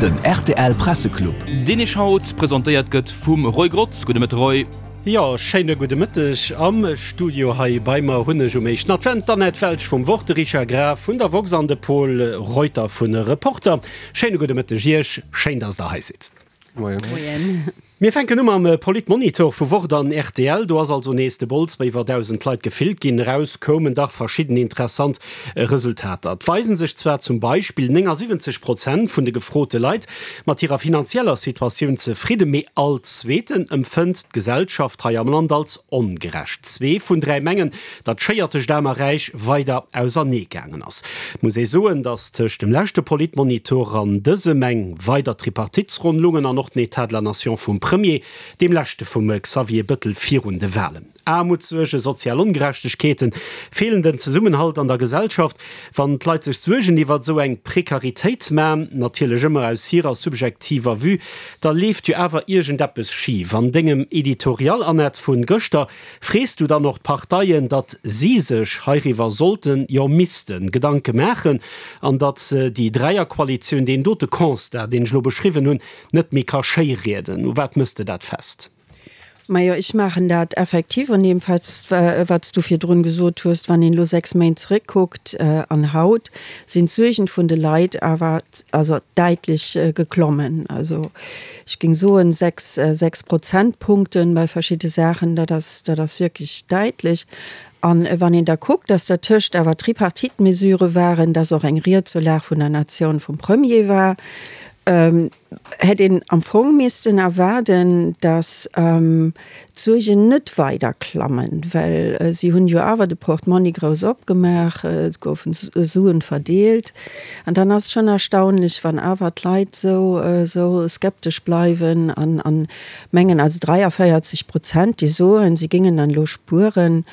Den rtl Presseclub. Deen Iech haut presentéiert gëtt vum Roy Grotz. Gudde Mëtte Roy. Jo, schéine gudde Mëtteg. Am Studio hei bei mer hunn ech um éischten Advent d'Annette Welsch vum Wort, de Richard Graf vun der woxx an de Pol Reuter vun Reporter. Schéine gudde Mëtteg Iech, schéin dass der hei sidd. Moien. Mir fänken u mam Politmonitor vu Wort an rtl. Do ass also nees de Bols bei iwwer 1.000 Leit gefillt ginn. Eraus koumen dach verschidden interessant Resultater. Et weisen sech zwar zum Beispill 79 Prozent vun de gefrote Leit mat hirer finanzieller Situatioun zefridden, mee all Zweeten empfënnt d'Gesellschaft hei am Land als ongerecht. Zwee vun 3 mengen, datt d'Schéier tëscht Aarm a Räich weider ausernee gaangen ass. Et muss ee soen, datt tëscht dem leschte Politmonitor an dësem eng weider Tripartitesronn lungen an och den Etat de la Nation vum Premier, deem leschte vum Xavier Bëttel virun de Walen. Aarmutssuergen, sozial Ongerechtegkeeten, feelenden Zesummenhalt an der Gesellschaft. Wann d'Leit sech Suergen iwwert esou eng Prekaritéit man, natierlech ëmmer aus hirer subjektiver Vue, da leeft jo awer iergendeppes schif. An dengem Editorial, Annette, vun gëschter Frees du dann och d'Parteien, datt si sech heiriwwer sollten, jo missten, Gedanke maachen an datt déi Dräierkoalitioun deen dote Constat, deen ech elo beschriwwen hunn, net méi ka schéirieden? U wat mëss de dat fest? Majo, ech maachen dat effektiv un deem fest, wat s du virdrun gesot hues. Wann een elo 6 Méint zeréckkuckt an haut, sinn d'Suergen vun de Leit awer also däitlech geklommen. Also Ech géing soen, 6, 6 Prozentpunkten bei verschidde Saachen, dat ass, dat ass wierklech däitlech. A wann een da kuckt, dass dertëscht awer Tripartite-Mesurë waren, dass och eng Ried zur Lag vun der Natioun vum Premier war, hätt een am Fong missten erwaarden, dass d'Suergen net weider klammen, well si hunn jo awer de Portmonni grouss opgemaach, et goufen Suen verdeelt. An dann ass et schonn erstaunlech, wann awer d'Leit esou esou skeptesch bleiwen an an mengen, also 43 Prozent, déi soen, si géingen dann elo spueren.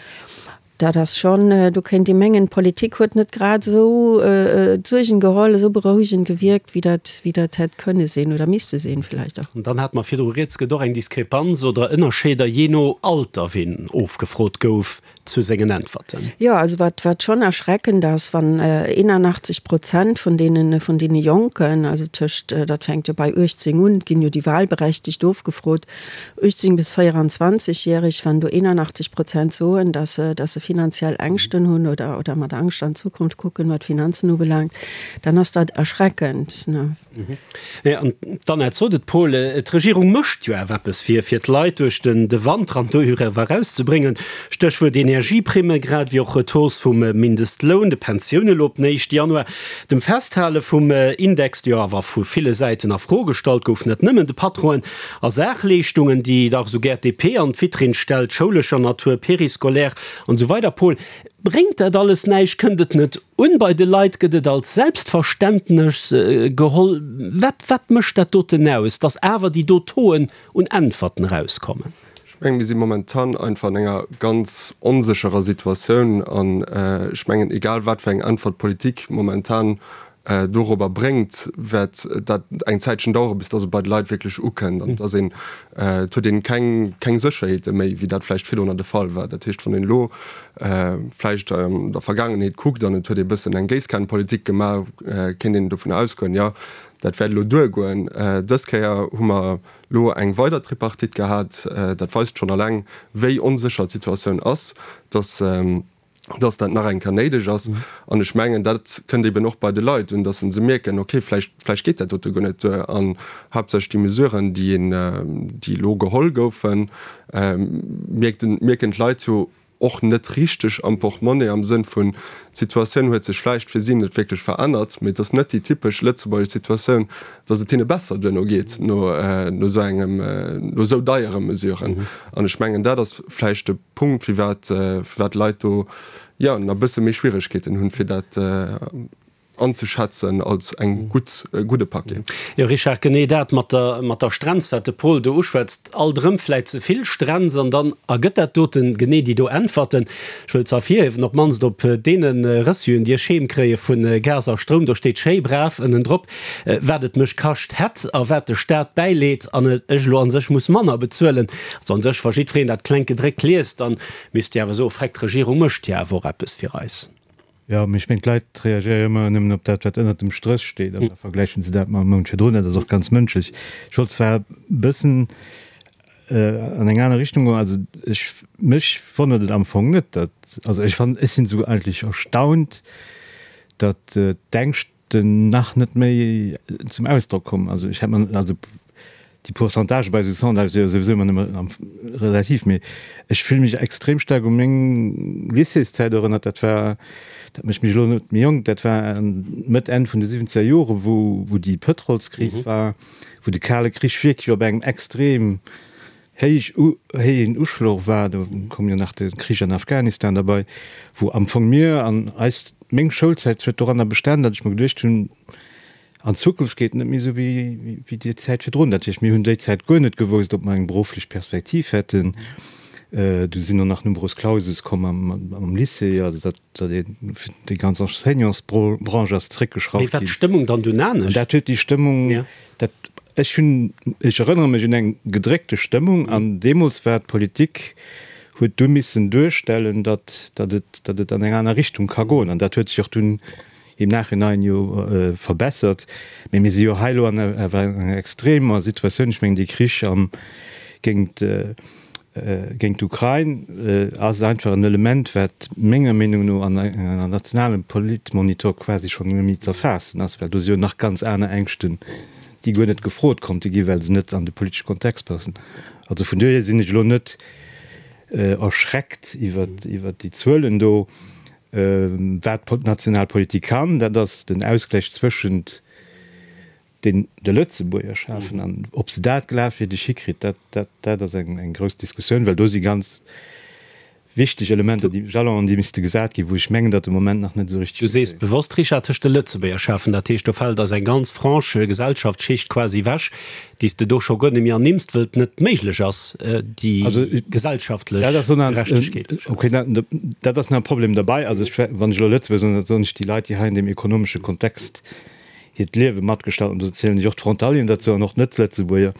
Dat ass schonn, do kéint ee mengen, d'Politik huet net grad esou d'Suergen geholl, esou berouegend gewierkt, wéi dat, wéi dat hätt kënne sinn oder misste sinn vläicht och. An dann hate mer virdru rieds, gëtt och eng Diskrepanz oder Ënnerscheeder jee no Alter, ween ofgefrot gouf zu sengen Äntwerten. Jo, also wat, wat schonn erschreckend ass, wann 81 Prozent vun deene, vun deene Jonken, also tëscht, dat fänkt jo bei 18 un, et ginn jo déi Wahlberechtegt ofgefrot, 18 bis 24 järeg, wann do 81 Prozent soen, dass se, dass se finanziell Ängschten hunn oder, oder mat Angscht an d'Zukunft kucken, wat d'Finanzen ubelaangt, dann ass dat erschreckend, ne. Jo, an d'Annette sot et, Paul, d'Regierung mécht jo awer eppes fir, fir d'Leit duerch den, de Wanter an doriwwer erauszebréngen. Stéchwuert Energieprimme, grad ewéi och d'Hausse vum Mindestloun, de Pensioune lo op den éischte Januar, dem Festhale vum Index, dee jo awer vu ville Säiten a Fro gestallt gouf, net nëmmen de Patronen, A Saachleeschtungen, déi dach esou gär d'DP an d'Vitrinn stellt, schoulescher Natur, périscolaire an esou weider Paul, bréngt dat alles näischt? Kënnt et net un bei de Leit? Gëtt et als Selbstverständnes geholl? Wat, wat mécht dat doten aus, dass awer déi do Tauxen un Äntwerten erauskommen? Ech mengen, mir si momentan einfach an enger ganz onsécherer Situatioun an ech mengen, egal wat fir eng Äntwert d'Politik momentan dorobber bréngt, wäert dat eng Zäitchen daueren, bis dass et bei de Leit wierklech ukënnt an dass een, et huet een keng, keng Sécherheete méi, wéi dat vläicht virdrunner de Fall war. Dat heescht, wann een elo vläicht an der Vergaangenheet kuckt an et huet ee bëssen eng Géisskanenpolitik gemaach, kéint een dovun ausgoen, jo, dat wäert elo duergoen. Dës Kéier hu mer elo eng weider Tripartite gehat. Dat weist schonn alleng, wéi onsécher d'Situatioun ass, dass, dass dat nach eng Kéier néideg ass. An ech mengen, dat kënnt eben och bei de Leit un, dass se mierken, okay, vläicht, vläicht geet dat dote guer net duer. An haaptsächlech déi Mesuren, déi een, déi elo geholl goufen, mierkt, mierken d'Leit jo och net richteg am Portemonnaie, am Sënn vun, d'Situatioun huet sech vläicht fir si net wierklech verännert, mee et ass net déi typesch lëtzebuergesch Situatioun, dass et hinne besser duerno geet, no, no esou engem, no esou deiere Mesuren. An ech mengen, dat ass vläicht de. Punkt, firwat firwat d'Leit do, jo, nach e bësse méi Schwieregkeeten hunn, fir dat anzeschätzen als eng gutt, e gudde Paquet. Jo, Richard, genee dat mat der, mat der Strenz, wat de Paul do uschwätzt, alt erëm vläicht ze vill Strenz an dann ergëtt dat doten genee déi do Äntwerten. Ech wëll ze ervirhiewen, op d'mannst op deene Reçuen, déi ech heem kréie vu Gas a Stroum, do steet schéi brav ënnendrop, wat et mech kascht hätt a wat de Staat bäileet an ech elo a sech muss manner bezuelen. Also an sech, wa jiddwereen dat klengt gedréckt liest, dann misst Dir awer soen, Freck, d'Regierung mécht jo awer och eppes fir eis. Jo, mee ech mengen, d'Leit reagéiere jo ëmmer nëmmen op dat, wat ënnert dem Stréch steet, an da vergläichen se dat mam Mount virdrun. Dat ass och ganz mënschlech. Ech wollt zwar e bëssen an eng aner Richtung goen. Also ech, mech wonnert et am Fong net, datt, also ech fannen, ech sinn esouguer eigentlech erstaunt, datt d'Ängscht, den nach net méi zum Ausdrock komm. Also ech hätt mer, also déi Pourcentage bei esou Sondagë si jo souwisou ëmmer nëmme relativ, mee ech fille mech extrem staark u meng Lycéeszäit erënnert. Dat war, dat mécht mech elo net méi jonk, dat war Mëtt, Enn vun de siwwenzeger Jore wou wou déi Pëtrolskris war, wou de Kale Krich wierklech op engem extrem héich héijen Uschloch war, do koum jo nach de Krich an Afghanistan derbei, wou am Fong mir an eis, meng Schoulzäit huet doranner bestan, datt ech mer geduecht hunn, an Zukunft geet et net méi esou wéi wéi déi Zäit virdrun. Dat heescht, mir hunn déi Zäit guer net gewousst, ob mer eng berufflech Perspektiv hätten. Du sinn och nach Numerus Clausus komm am am Lycée, also datt datt ee fir déi ganz Enseignantsbranche ass zréckgeschrauft ginn. Mee war d'Stëmmung dann dunn anescht? An dat huet déi Stëmmung, dat, ech hunn, ech erënnere mech un eng gedréckte Stëmmung an deemools war d'Politik, huet du missen duerstellen, datt, datt et, datt et an eng aner Richtung ka goen. An dat huet sech och dunn im Nachhinein jo verbessert. Mee mir si jo hei elo an awer enger extremer Situatioun. Ech mengen, dee Krich am, géint, géint d'Ukrain ass einfach en Element, wat menger Meenung no an enger nationalem Politmonitor quasi schonn net méi z'erfaassen ass, well do si jo nach ganz aner Ängschten, déi guer net gefrot konnte gi well se net an de politesche Kontext passen. Also vun dohier sinn ech elo net erschreckt iwwert déi Zuelen do. Wat d'national Politik kann, dat ass den Ausgläich zwëschent deen de Lëtzebuerger schafen, an ob se dat glafwierdeg hikritt, dat, dat, dat ass eng, eng grouss Diskussioun, well do si ganz wichteg Elementer, déi, Jalons, déi misste gesat ginn, wou ech mengen, datt de Moment nach net esou richtig. Du sees bewosst, Richard, tëscht de Lëtzebuerger schafen, dat heescht, do fält eis eng ganz Frange Gesellschaftsschicht quasi ewech, déi s de do scho guer net méi ernimms, wëll et net méiglech ass, déi gesellschaftlech Gerechtegkeet ze schafen. Okay, dat ass nach e Problem derbei. Also ech, wann ech elo Lëtzebuerger soen, da soen ech déi Leit, déi hei an deem ekonomesche Kontext hiert Liewe matgestalten, an do zielen ech och d'Frontalieren derzou an och d'Net-Lëtzebuerger.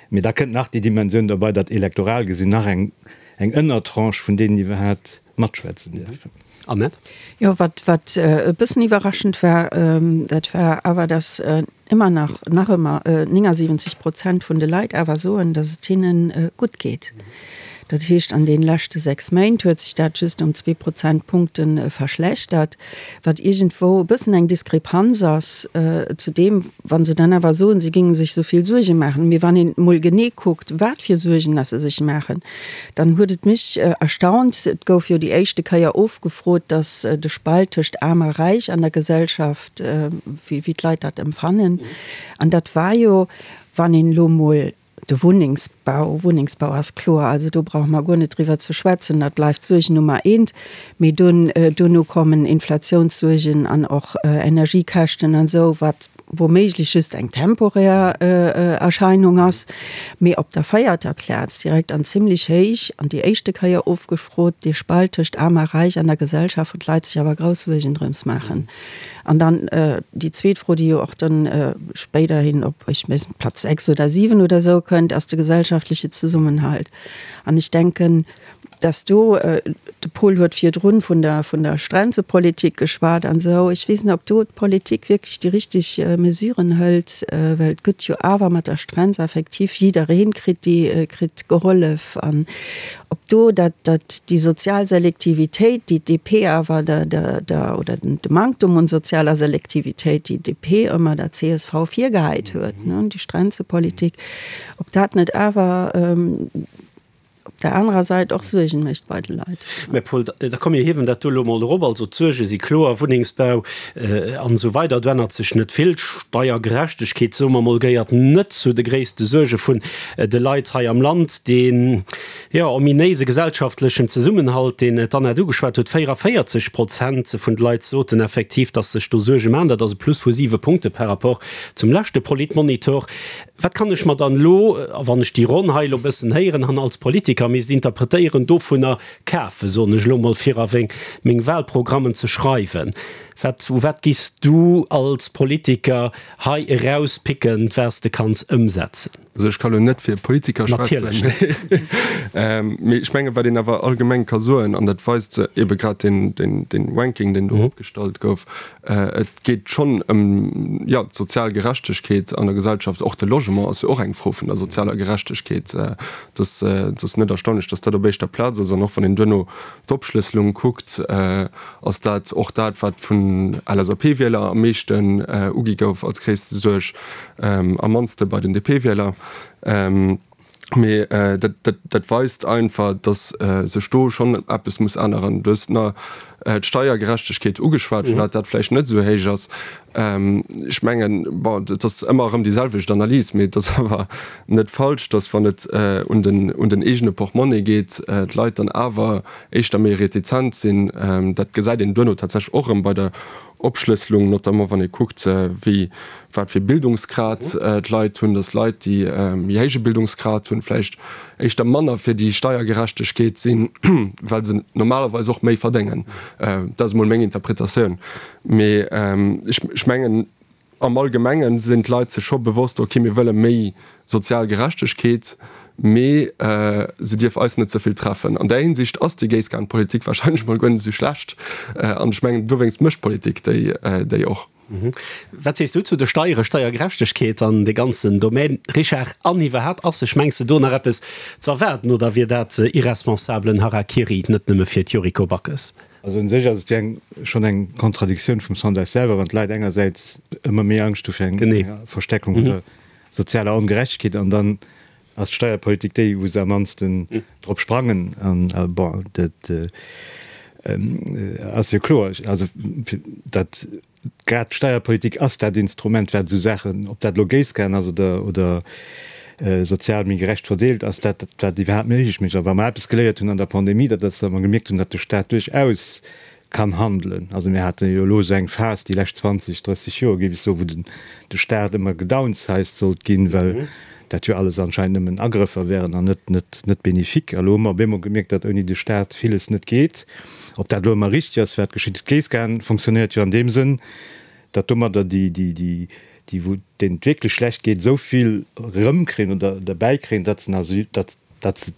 Mee da kënnt nach déi Dimensioun derbei, datt elektoral gesinn nach eng eng Ënnertranche vun deenen iwwerhaat matschwätzen dierfen. Annette? Jo, wat wat e bëssen iwwerraschend war, dat war awer, datt ëmmer nach, nach ëmmer 79 Prozent vun de Leit awer soen, datt et hinne gutt geet. Dat heescht, an deene leschte 6 Méint huet sech dat just ëm zwee Prozentpunkte verschlechtert, wat iergendwou e bëssen eng Diskrepanz ass zu deem, wa se dann awer soen, si géinge sech esou vill Suerge maachen. Mee wann een emol genee kuckt, wat fir Suergen dass se sech maachen, dann huet et mech erstaunt, et gouf jo déi éischte Kéier ofgefrot, dass de Spalt tëscht Aarm a Räich an der Gesellschaft, wéi d'Leit dat empfannen, an dat war jo, wann een elo emol De Wunnengsbau, Wunnengsbau ass kloer, also do brauche mer guer net driwwer ze schwätzen, dat bleift d'Suerg Nummer eent. Mee dunn, duerno kommen Inflatiounssuergen an och Energiekäschten an esou, wat woméiglech just eng temporär Erscheinung ass. Mee op der véierter Plaz, direkt an zimlech héich, an déi éischte Kéier ofgefrot, dee Spalt tëscht Aarm a Räich an der Gesellschaft, wou d'Leit sech awer grouss Suergen drëms maachen. An dann déi zweet Fro, déi jo och dann spéiderhin op, ech weess net, Platz 6 oder 7 oder esou kënnt, ass de gesellschaftliche Zesummenhalt. An ech denken, dass do, de Paul huet virdrun vun der, vun der Strenzepolitik geschwat an esou, ech weess net, ob do d'Politik wierklech déi richtig Mesuren hëlt, well et gëtt jo awer mat der Strenz effektiv, jiddereen kritt déi, kritt gehollef. An Ob do dat, dat déi sozial Selektivitéit, déi d'DP awer der, der, der, oder den, de Manktum un sozialer Selektivitéit, déi d'DP ëmmer der csv virgehäit huet, ne, déi Strenzepolitik, ob dat net awer op der anerer Säit och Suergen mécht bei de Leit. Mä Paul, da komm mir hiewen dat do elo emol erop. Also d'Suerge si kloer, Wunnengsbau an esou weider, do ännert sech net vill. D'Steiergerechtegkeet, soe mer emol, gehéiert net zu de gréisste Suerge vun de Leit hei am Land. Deen, jo, ominéise gesellschaftlechen Zesummenhalt, deen d'Annette ugeschwat huet, 44 Prozent vun de Leit soten effektiv, datt sech do Suerge maachen. Dat ass e Plus vu siwe Punkte par rapport zum leschte Politmonitor. Wat kann ech mer dann elo, a wann ech déi Ronn hei elo e bëssen héieren an als Politiker misst interpretéieren, dovunner kafen, soen ech elo mol, fir a meng Wahlprogrammen ze schreiwen? Wat, u wat giffs du als Politiker hei erauspicken, wat s de kanns ëmsetzen? Also ech ka lo net fir Politiker schwätzen, mee ech mengen, wat een awer allgemeng ka soen, an dat weist ebe grad deen, deen, deen Ranking, deen do opgestallt gouf, et geet schonn ëm, jo, d'sozial Gerechtegkeet an der Gesellschaft. Och de Logement ass jo och eng Fro vun der sozialer Gerechtegkeet. Et ass, et ass net erstaunlech, datt dat op éischter Plaz ass. An och wann een duerno d'Opschlësselung kuckt, ass dat och dat, wat vun LSAP-Wieler am meeschten ugi gouf als gréisste Suerg, am mannste bei den DP-Wieler. Mee dat weist einfach, datt sech do schonn eppes muss änneren. Du hues nach d'Steiergerechtegkeet ugeschwat, firwat dat vläicht net esou héich ass. Ech mengen, bon, et ass ëmmer erëm déi selwecht Analys, mee et ass awer net falsch, datt wann et un den eegene Portmonni geet, d'Leit dann awer éischter méi retizent sinn. Dat gesäit een duerno tatsächlech och erëm bei der Opschlësselung, notamment wann ee kuckt, wéi, wat fir Bildungsgrad d'Leit hunn, dass Leit, déi méi héije Bildungsgrad hunn, vläicht éischter manner fir déi Steiergerechtegkeet sinn, well se normalerweis och méi verdéngen. Dat ass emol meng Interpretatioun. Mee ech mengen, Am Allgemengen sinn d'Leit sech scho bewosst, ok, mir wëlle méi sozial Gerechtegkeet, mee se dierf eis net ze vill treffen. An där Hinsicht ass déi Géisskanpolitik wahrscheinlech mol guer net esou schlecht. An ech mengen, dowéinst mécht d'Politik déi och. Wat sees du zu de Steiere, Steiergerechtegkeet an dee ganzen Domaine, Richard? An iwwerhaapt, ass sech, mengs de, do nach eppes ze erwaarden oder wier dat irresponsablen Harakiri, net nëmme fir d'Yuriko Backes? Also un sech ass et jo eng, schonn eng Kontradiktioun vum Sondage selwer, wann d'Leit engersäits ëmmer méi Angscht hu fir eng Verstärkung vun der sozialer Ongerechtegkeet an dann ass d'Steierpolitik déi, wou se am mannsten drop sprangen. An bon, dat ass jo kloer, also dat Grad d'Steierpolitik ass dat Instrument, wat esou Saachen, ob dat elo Géisskan ass oder, oder sozial méi gerecht verdeelt, ass dat, wat iwwerhaapt méiglech mécht. A wa mer eppes geléiert hunn an der Pandemie, dat ass, datt mer gemierkt hunn, datt de Staat duerchaus kann handelen. Also mir hate jo elo esou eng Phas déi lescht 20, 30 Joer, géif ech soen, wou den, de Staat ëmmer gedownsized sollt ginn, well dat jo alles anscheinend nëmmen Agrëffer wären an net, net, net bénéfique. A elo hu mer op eemol gemierkt, datt ouni de Staat villes net geet. Ob dat elo ëmmer richteg ass, wat geschitt, d'Géisskan fonctionnéiert jo an deem Sënn, datt domadder déi, déi, déi, déi wou deenen et wierklech schlecht geet, esou vill erëmkréien oder derbäikréien, datt se nach, datt, datt se,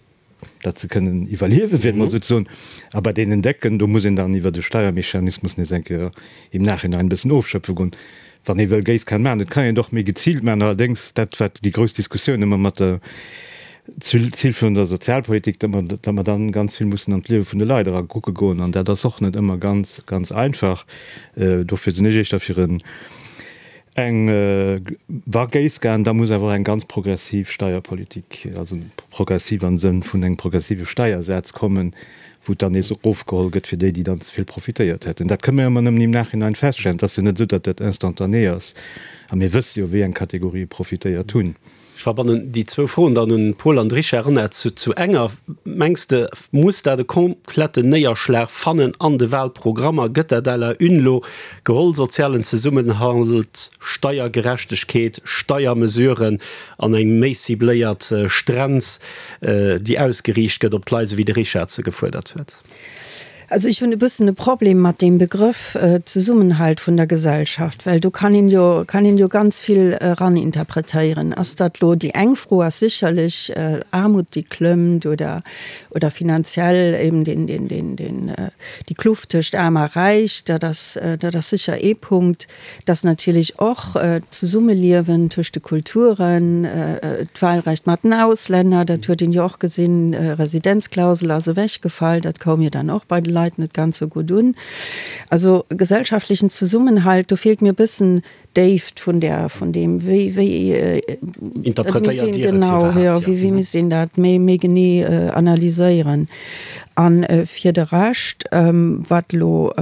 datt se kënnen iwwerliewen, fir et emol esou ze soen. A bei deenen Décken, do muss een dann iwwert e Steiermechanismus nees eng Kéier im Nachhinein e bëssen ofschöpfe goen, wann ee wëll Géisskan maachen. Et kann een et och méi geziilt maachen, allerdéngs dat, wat déi grouss Diskussioun ëmmer mat der Zil vun der Sozialpolitik, datt mer, datt mer dann ganz vill mussen an d'Liewe vun de Leit era kucke goen. An dat ass och net ëmmer ganz, ganz einfach. Dofir sinn ech éischter fir en, eng, wa Géisskan, da muss awer och eng ganz progressiv Steierpolitik, also progressiv am Sënn vun engem progressive Steiersaz kommen, wou et dann nees erofgeholl gëtt fir déi, déi dann ze vill profitéiert hätten. Dat kënne mer ëmmer nëmmen im Nachhinein feststellen. Et ass jo net esou, datt dat instantané ass. A mir wësse jo, wéi eng Kategorië profitéiert hunn. Ech verbannen déi zwou Froen dann un Paul an de Richard Renert zu enger. Mengs de, muss dat e kompletten Néierschlag fannen an de Wahlprogrammer? Gëtt dat à la une lo geholl, sozialen Zesummenhalt, Steiergerechtegkeet, Steiermesuren an eng méi cibléiert Strenz, déi ausgeriicht gëtt op d'Leit, esou wéi de Richard se gefuerdert huet? Also ech hunn e bëssen e Problem mat deem Begrëff Zesummenhalt vun der Gesellschaft, well do kann een jo, kann een jo ganz vill eraninterpretéieren. Ass dat elo, déi eng Fro ass sécherlech Aarmut déi klëmmt oder, oder finanziell eben deen, deen, deen, deen, déi Kluft tëscht Aarm a Räich, dat ass, dat ass sécher ee Punkt. Dass natierlech och d'Zesummeliewen tëscht de Kulturen, d'Wahlrecht mat den Auslänner, dat huet een jo och gesinn, Residenzklausel ass ewechgefall, dat koum jo dann och bei de Leit net ganz esou gutt un. Also gesellschaftlechen Zesummenhalt, do feelt mir e bëssen d'Déift vun där, vun deem, wéi, wéi, dat misst een, genau, jo, wéi, wéi misst een dat méi, méi genee analyséieren. A fir de Rescht, wat elo,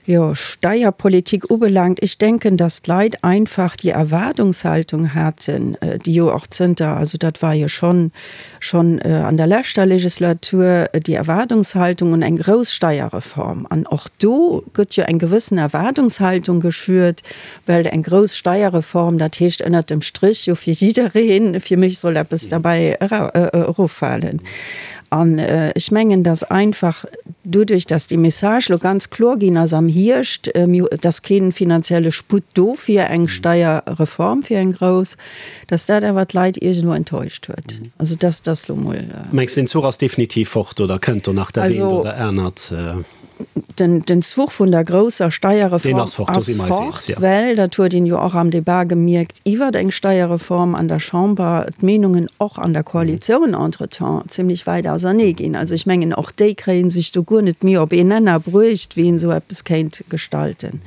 Jo, Steierpolitik ubelaangt, ech denken, dass d'Leit einfach déi Erwaardungshaltung haten, déi jo och zënter, also dat war jo schonn, schonn an der leschter Legislatur, déi Erwaardungshaltung un eng grouss Steierreform. An och do gëtt jo eng gewëssen Erwaardungshaltung geschürt, well eng grouss Steierreform, dat heescht ënnert dem Strich jo fir jiddereen, fir mech soll eppes derbäi eroffalen. An ech mengen, dass einfach doduerch, dass déi Message elo ganz kloer ginn ass am Hierscht, et ass kee finanzielle Sputt do fir eng Steierreform, fir eng grouss, dass dat awer d'Leit iergendwou enttäuscht huet. Also dass dass lo mol. Mengs de, den Zuch ass definitiv fort oder kënnt do nach dat eent oder anert? Den Zuch vun der grousser Steierreform ass fort, well, dat huet een jo och am Debat gemierkt iwwert eng Steierreform an der Chamber, d'Meenungen och an der Koalitioun entretemps zimlech wäit ausernee ginn. Also ech mengen, och déi kréie sech do guer net méi op een Nenner bruecht, wéi een esou eppes kéint gestalten.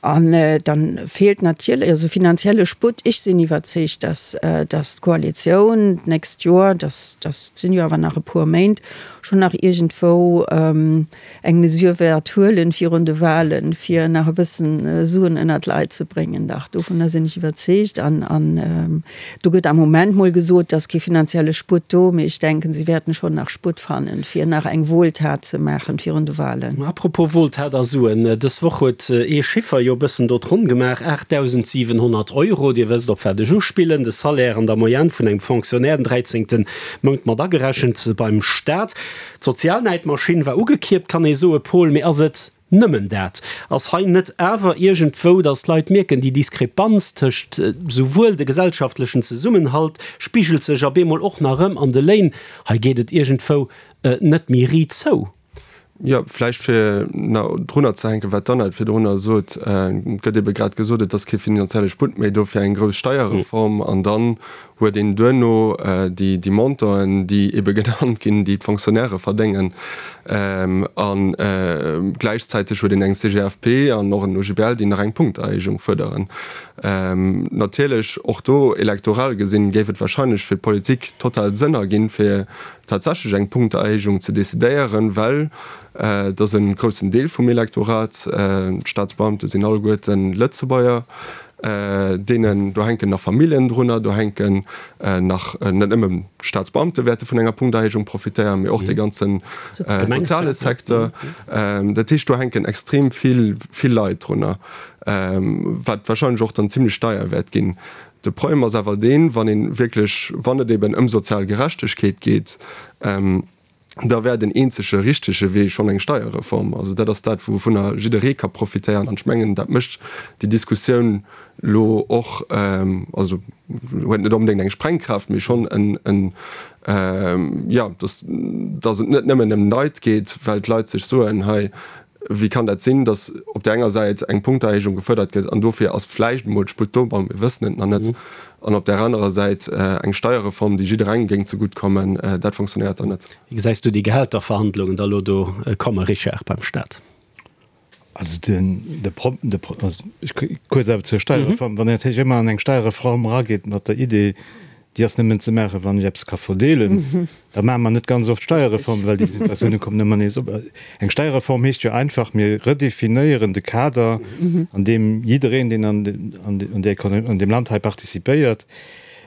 An dann feelt natierlech, also finanzielle Sputt, ech sinn iwwerzeegt, dass d'Koalitioun d'nächst Joer, dat sinn jo awer nach e puer Méint, schonn nach iergendwou eng Mesure wäert huelen virun de Wahlen, fir nach e bëssen Suen ënnert d'Leit ze bréngen. Dach, dovunner sinn ech iwwerzeegt. An, an do gëtt am Moment mol gesot, et ass kee finanzielle Sputt do, mee ech denken, si wäerten schonn nach Sputt fannen, fir nach eng Wohltat ze maachen virun de Wahlen. Apropos Wohltat a Suen, Dës Woch huet ee Chiffer jo e bëssen do d'Ronn gemaach, 8.700 Euro, Dir wësst, op wat ech uspillen, de Salaire an der Moyenne vun engem Fonctionnaire, den dräizéngte Mount mat agerechent beim Staat. D'Sozialnäidmaschinn war ugekierpt, kann ee soe, Paul, mee ass et nëmmen dat? Ass hei net awer iergendwou, datt d'Leit mierken, déi Diskrepanz tëscht souwuel de gesellschaftlechen Zesummenhalt spigelt sech op eemol och nach erëm an de Léin, hei geet et iergendwou net méi riit zou? Jo, vläicht fir nach drunner ze hänken, wat d'Annette virdrunner sot, Et gëtt ebe grad gesot, et ass kee finanzielle Sputt méi do fir eng grouss Steierreform. An dann huet een duerno déi Montanten, déi ebe genannt ginn, déi d'Fonctionnairë verdéngen. A gläichzäiteg huet een eng CGFP an och en OGBL, déi nach eng Punkterhéijung fuerderen. Natierlech, och do elektoral gesinn, géif et wahrscheinlech fir d'Politik total Sënn erginn, fir tatsächlech eng Punkterhéijung ze decidéieren, well et ass e groussen Deel vum Elektorat, d'Staatsbeamte sinn alleguerten Lëtzebuerger, deenen, do hänken nach Familljen drunner, do hänken nach net nëmme Staatsbeamte wäerte vun enger Punkterhéijung profitéieren, mee och de ganze soziale Secteur. Dat heescht, do hänken extrem vill, vill Leit drunner, wat wahrscheinlech och dann zimlech deier wäert ginn. De Problem ass awer deen, wann ee wierklech, wann et eben ëm sozial Gerechtegkeet geet, da wär den eenzege richtege Wee schonn eng Steierreform. Also dat ass dat, wouvunner jidderee ka profitéieren. An ech mengen, dat mécht déi Diskussioun elo och, also huet net onbedéngt eng Sprengkraaft, mee schonn en, jo, dass, dass et net nëmmen ëm d'Leit geet, well d'Leit sech soen, hei, Wéi kann dat sinn, datt op där enger Säit eng Punkterhéijung gefuerdert gëtt, an dofir ass vläicht emol d'Sputt do, bon, mir wëssen et nach net, an op där anerer Säit eng Steierreform, déi jidderengem géing zegutt kommen, dat fonctionnéiert dann net. Wéi gesäis du déi Gehälterverhandlungen da elo do komme, Richard, beim Staat? Also den, de Pro, de Pro, also ech kuerz awer zur Steierreform, Wann een natierlech ëmmer an eng Steierreform erageet mat der Idee, déi ass nëmmen ze maachen, wann ech eppes ka verdeelen, da maache mer net ganz oft Steierreformen, well déi Situatioune kommen ëmmer nees op. Eng Steierreform heescht jo einfach, mir redefinéieren de Kader, an deem jiddereen, deen an an deem Land hei participéiert,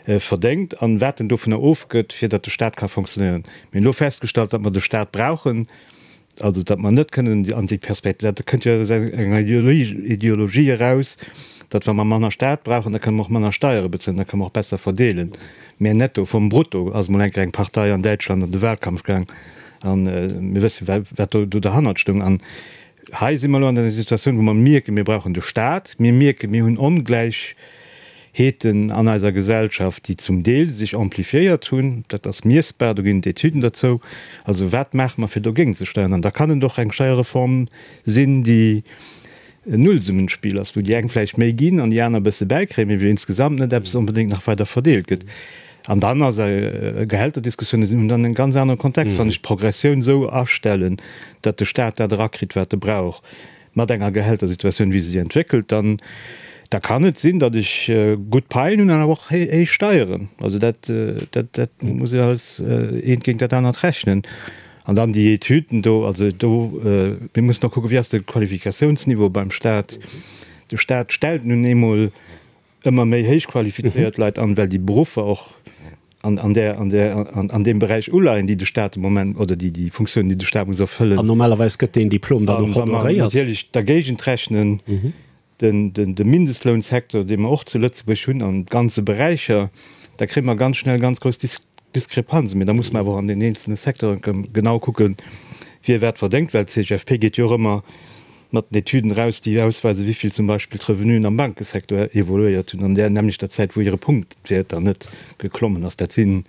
verdéngt an wat en dovunner ofgëtt, fir datt de Staat ka fonctionnéieren. Mir hunn elo festgestallt, datt mer de Staat brauchen, Also, datt mer net kënnen an déi Perspektiv, dat kënnt jo aus enger Ideologie eraus, datt wa mer manner Staat brauchen, da kënne mer och manner Steiere bezuelen, da kënne mer och besser verdeelen. Mä netto vum Brutto ass emol eng Kéier eng Partei an Däitschland an de Wahlkampf gaang a mir wësse wat do derhannert stoung. An hei si mer elo an enger Situatioun, wou mer mierken, mir brauchen de Staat, mir mierken, mir hunn Ongläich, Heeten an eiser Gesellschaft, déi zum Deel sech amplifiéiert hunn, dat ass miessbar, do ginn et Etüden derzou. Also wat maache mer fir dogéint ze steieren? An da kann et och eng Steierreform sinn, déi en Nullsummenspiel ass, wou déi eng vläicht méi ginn an déi aner e bësse bäikréien, mee wou insgesamt net eppes onbedéngt nach weider verdeelt gëtt. An dann ass Gehälterdiskussiounen hunn dann en ganz anere Kontext, wann ech d'Progressioun esou astellen, datt de Staat dat erakritt, wat e brauch. Mat enger Gehältersituatioun, wéi se sech entwéckelt, dann da kann et sinn, datt ech gutt Paien hunn an awer och héich Steieren. Also dat, dat, dat muss ee alles eent géint dat anert rechnen. An dann déi Etüden do, also do, mir mussen och kucken, wéi ass de Qualifikatiounsniveau beim Staat. De Staat stellt nun eemol ëmmer méi héich qualifizéiert Leit an, well déi Beruffer och an, an där, an där, an, an deem Beräich uleien, déi de Staat de Moment, oder déi, déi Funktioun, déi de Staat muss erfëllen. An normalerweis gëtt deen Diplom dann och honoréiert. An wa mer natierlech dergéigent rechnen, den, den, de Mindestlounsecteur, dee mer och zu Lëtzebuerg hunn an ganze Beräicher, da kréie mer ganz schnell ganz grouss Dis. Diskrepanzen, mee da muss mer awer och an den eenzelne Secteuren genau kucken, wie wat verdéngt, well d'CGFP geet jo och ëmmer mat den Etüden eraus, déi ausweisen, wéi vill zum Beispill d'Revenuen am Bankesecteur evoluéiert hunn an där nämmlechter Zäit, wou hire Punktwäert dann net geklommen ass. Dat sinn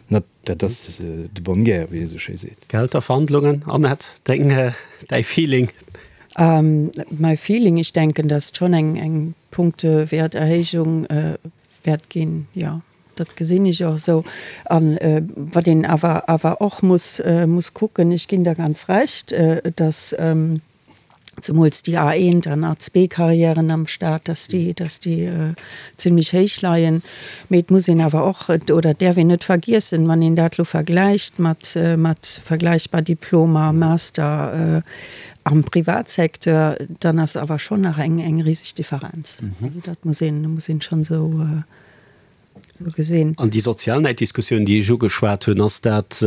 net, dat ass de bonne guerre, wéi ee sou schéi seet. Gehälterverhandlungen, Annette, deng, däi Feeling? My feeling, ich denken, dass schon eng, eng Punktewäerterhéijung wäert ginn, jo. Dat gesinn ech och esou. A wat een awer awer och muss muss kucken, ech ginn der ganz Recht, dass zemools déi A1 an A2-Carrièren am Stat, dass déi, dass déi zimlech héich leien. Mee et muss een awer och, oder et däerf een net vergiessen, wann een dat elo vergläicht mat mat vergläichbar Diplomer, Master am Privatsecteur, dann ass awer schonn nach eng eng riseg Differenz. Also dat muss een muss een schonn esou. Sou gesinn. An déi sozial Näiddiskussioun, déi ech ugeschwat hunn, ass dat,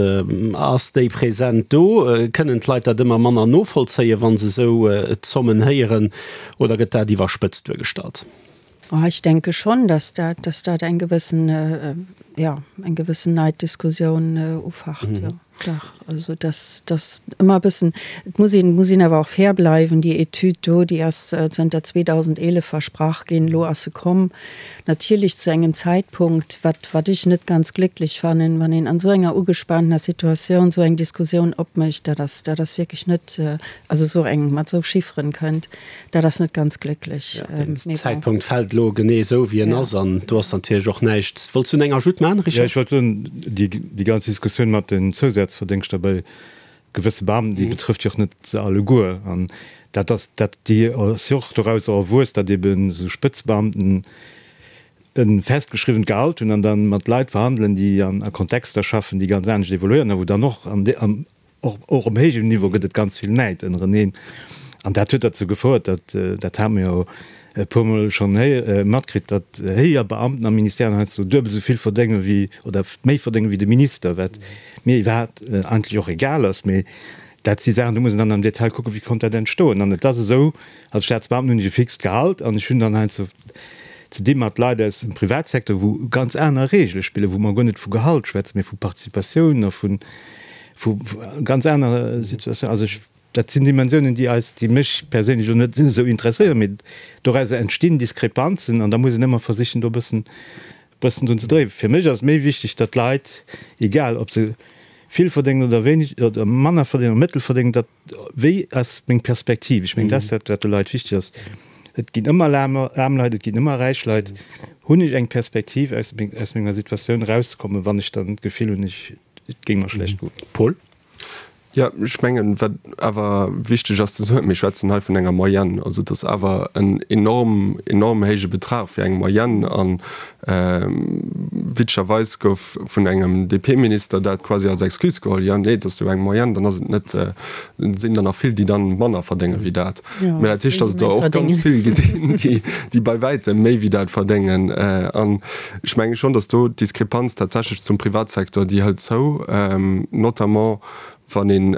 ass déi present do? Kënnen d'Leit dat ëmmer manner novollzéien, wa se esou Zommen héieren, oder gëtt dat iwwerspëtzt duergestallt? Oh, ech denke schonn, dass dat, dass dat eng gewëssen, jo, eng gewëssen Neiddiskussioun ufacht, jo. Dach, also dass dass ëmmer e bëssen, et muss een, muss een awer och fair bleiwen, déi Etüd do, déi ass zënter 2011 versprach ginn, elo ass se komm, natierlech zu engem Zäitpunkt, wat wat ech net ganz glécklech fannen, wann een an esou enger ugespaantener Situatioun esou eng Diskussioun opmécht, dat ass dat ass wierklech net, also esou eng mat esou Chifferen kënnt. Dat ass net ganz glécklech. Ja, den Zäitpunkt fält elo genee esou, wéi en ass, an do ass natierlech och näischt. Wollts du eng Ajoute maachen, Richard? Jo, ech wollt soen, déi, déi ganz Diskussioun mat den Zousazverdéngschter bei gewësse Beamten, déi betrëfft jo och net se alleguer. An dat ass, dat, déi ass jo och dorausser erwuess, datt eben esou Spëtzebeamten e festgeschriwwent Gehalt hunn an da mat Leit verhandelen, déi an a Kontexter schaffen, déi ganz anescht evoluéieren a wou dann och an, am Och och um héijem Niveau gëtt et ganz vill Näid ënnereneen. An dat huet derzou gefouert, datt, dat hate mer jo e puermol schonn héi matkritt, datt héijer Beamten a Ministèren heiansdo duebel esou vill verdénge wéi, oder méi verdénge wéi de Minister, wat mir iwwerhaapt eigentlech och egal ass. Mee dat si Saachen, do muss een dann am Detail kucken, wéi konnt dat entstoen. An et ass esou, als Staatsbeamten hunn ech e fixt Gehalt an ech hunn dann heiansdo ze di mat Leit aus dem Privatsecteur, wou ganz aner Reegele spillen, wou mer guer net vu Gehalt schwätzen, mee vu Participatioun a vu vu ganz aner Situatioun. Also ech, dat sinn Dimensiounen, déi eis, déi mech perséinlech elo net esou interesséieren, mee dorauser entstinn Diskrepanzen an da muss een ëmmer versichen, do e bëssen, bëssen drun ze dréien. Fir mech ass et méi wichteg, datt d'Leit, egal ob se vill verdéngen oder wéineg oder manner verdéngen oder mëttel verdéngen, datt, wéi ass meng Perspektiv? Ech mengen, dat ass dat, wat de Leit wichteg ass. Et ginn ëmmer aarm Leit, et ginn ëmmer räich Leit. Hunn ech eng Perspektiv, aus menger Situatioun erauszekommen, wann ech dann d'Gefill hunn, ech, Et géing mer schlecht goen. Paul? Jo, ech mengen, wat awer wichteg ass ze soen, mir schwätzen hei vun enger Moyenne. Also et ass awer en enorm, enorm héije Betrag fir eng Moyenne. A witzegerweis gouf vun engem DP-Minister dat quasi als Excuse geholl, Jo, nee, et ass jo eng Moyenne, dann ass et net, et sinn der nach vill, déi dann manner verdénge wéi dat. Mä dat heescht, datt et der och ganz vill ginn, déi bei wäitem méi wéi dat verdéngen. An Ech menge schonn, datt do d'Diskrepanz tatsächlech zum Privatsecteur, déi hëlt zou, notamment wann ee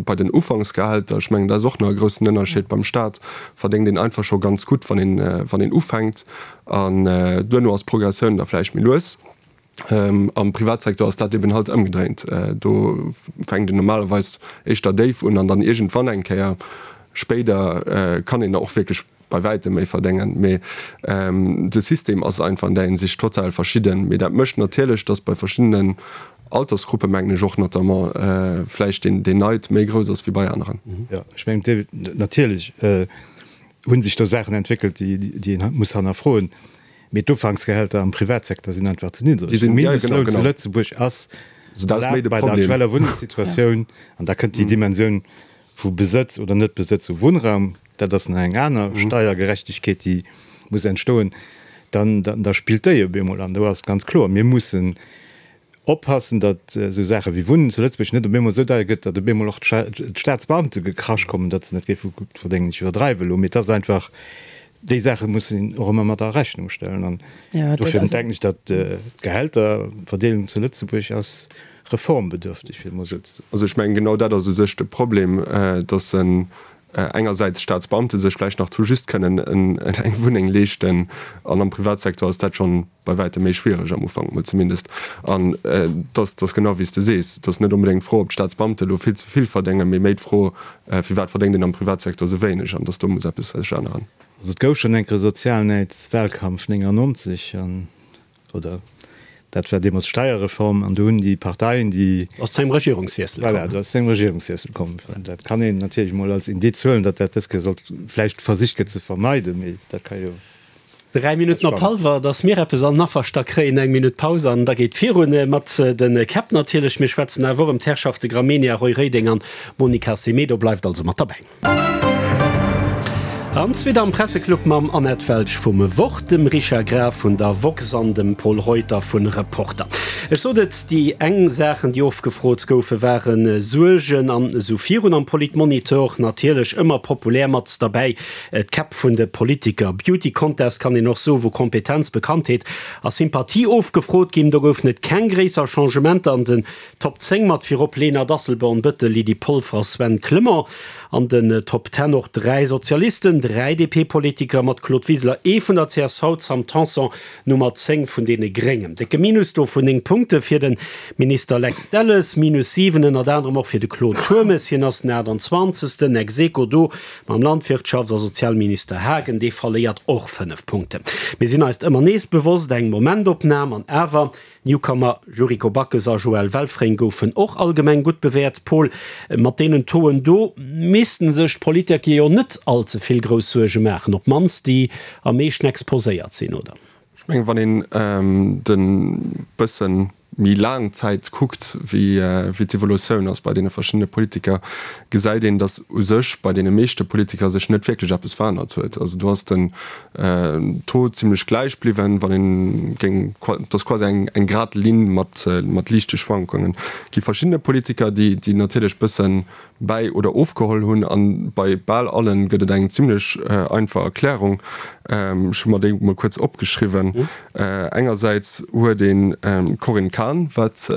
bei den Ufanksgehälter, ech mengen, dat ass och nach e groussen Ënnerscheed, beim Stat verdéngt een einfach scho ganz gutt, wann een, wann een ufänkt, an duerno ass d'Progressioun da vläicht méi lues. Am Privatsecteur ass dat eben halt ëmgedréint, do fänkt een normalerweis éischter déif un an dann iergendwann eng Kéier spéider kann een da och wierklech bei wäitem méi verdéngen, mee de System ass einfach an där Hinsicht total verschidden. Mee dat mécht natierlech, datt bei verschiddenen Altersgruppe mengen ech och notamment vläicht deen Neid méi grouss ass wéi bei aneren. Jo, ech mengen natierlech hu sech do Saachen entwéckelt, déi een muss hannerfroen, mee d'Ufanksgehälter am Privatsecteur sinn einfach ze niddreg. De Mindestloun zu Lëtzebuerg ass erlaabt bei der aktueller Wunnengssituatioun, an da kënnt déi Dimensioun vu Besëtz oder Net-Besëtz u Wunnraum, dat ass nach eng aner Steiergerechtegkeet, déi muss entstoen, dann da spillt déi op eemol. An do ass ganz kloer, mir mussen oppassen, datt esou Saache wéi Wunnen zu Lëtzebuerg net op eemol esou deier gëtt, datt op eemol och d'Staatsbeamte gekrasch kommen, datt se net géife gutt verdéngen. Ech iwwerdreiwe elo, mee et ass einfach, déi Saache muss een och ëmmer mat a Rechnung stellen. An dofir denken ech, datt d'Gehälterverdeelung zu Lëtzebuerg ass reformbedürftig, fir et emol esou ze soen. Also ech mengen, genau dat ass u sech de Problem, dass en. Engersäits Staatsbeamte sech vläicht nach tout juste kënnen eng Wunneng leeschten an am Privatsecteur ass dat schonn bei wäitem méi schwiereg, am Ufank mol zumindest. An et ass genau wéi s de sees, et ass net onbedéngt d'Fro, ob d'Staatsbeamte elo vill ze vill verdéngen, mee méi d'Fro, firwat verdéngt een am Privatsecteur esou wéineg an dass do muss eppes sech änneren. Also et gouf schonn eng Kéier e Sozialnäidswahlkampf 99 an Oder dat war deemools d'Steierreform an do hunn déi Parteien, déi. Ass zu engem Regierungswiessel komm. Voilà, do ass zu engem Regierungswiessel komm. Dat kann een natierlech emol als Indiz huelen, datt dat dës Kéier sollt vläicht versicht gëtt ze vermeiden, mee dat ka jo. Dräi Minutten op hallwer, datt mir eppes an den Afferstack kréien, eng Minutt Paus an da geet virun mat de Käpp natierlech. Mir schwätzen awer och ëm d'Herrschafte Gramegna, Roy Reding an Monica Semedo. Bleift also mat derbäi. An zweet am Presseclub mam Annette Welsch vum Wort, dem Richard Graf vun der woxx an dem Pol Reuter vun Reporter. Ech sot et, déi eng Saachen, déi ofgefrot goufe ware Suergen an esou virun am Politmonitor. Natierlech ëmmer populär mat derbäi d'Käpp vun de Politiker. Beauty Contest kann een och soen, wou Kompetenz, Bekanntheet a Sympathie ofgefrot ginn. Do goufen et keng gréisser Changementer an den Top 10 mat virop Lena Dasselborn-Bëttel, Lydie Polfer a Sven Clement. An den Top Ten och 3 Sozialisten, 3 DP-Politiker mat Claude Wiseler, ee vun der csv, Sam Tanson, Nummer 10 vun deene Gréngen. Décke Minus do vun 9 Punkte fir de Minister Lex Delles, Minus 7 ënnert anerem och fir de Claude Turmes, hien ass den 28. Ex aequo do mam Landwirtschafts a Sozialminister Haagen, dee verléiert och 5 Punkten. Mir sinn eis ëmmer nees bewosst, eng Momentopnam an awer Newcomer Yuriko Backes a Joël Welfring goufen och allgemeng gutt bewäert. Paul, mat deenen Tauxen do missten sech d'Politiker jo net all ze vill grouss Suerge maachen, op d'mannst déi am meeschten exposéiert sinn, oder? Ech mengen, wann een de bëssen méi laang Zäit kuckt, wéi d'Evolutioun ass bei deene verschiddene Politiker, gesäit een, datt u sech bei deene meeschte Politiker sech net wierklech eppes verännert huet. Also do ass den Taux zimlech gläich bliwwen, wann een géing, et ass quasi eng eng grad Linn mat mat liichte Schwankungen. Et gi verschiddene Politiker, déi déi natierlech bëssen bäi oder ofgeholl hunn, an bei bal allen gëtt et eng zimlech einfach Erklärung. Ech hu mer déi mol kuerz opgeschriwwen. Engersäits huet een d'Corinne Cahen, wat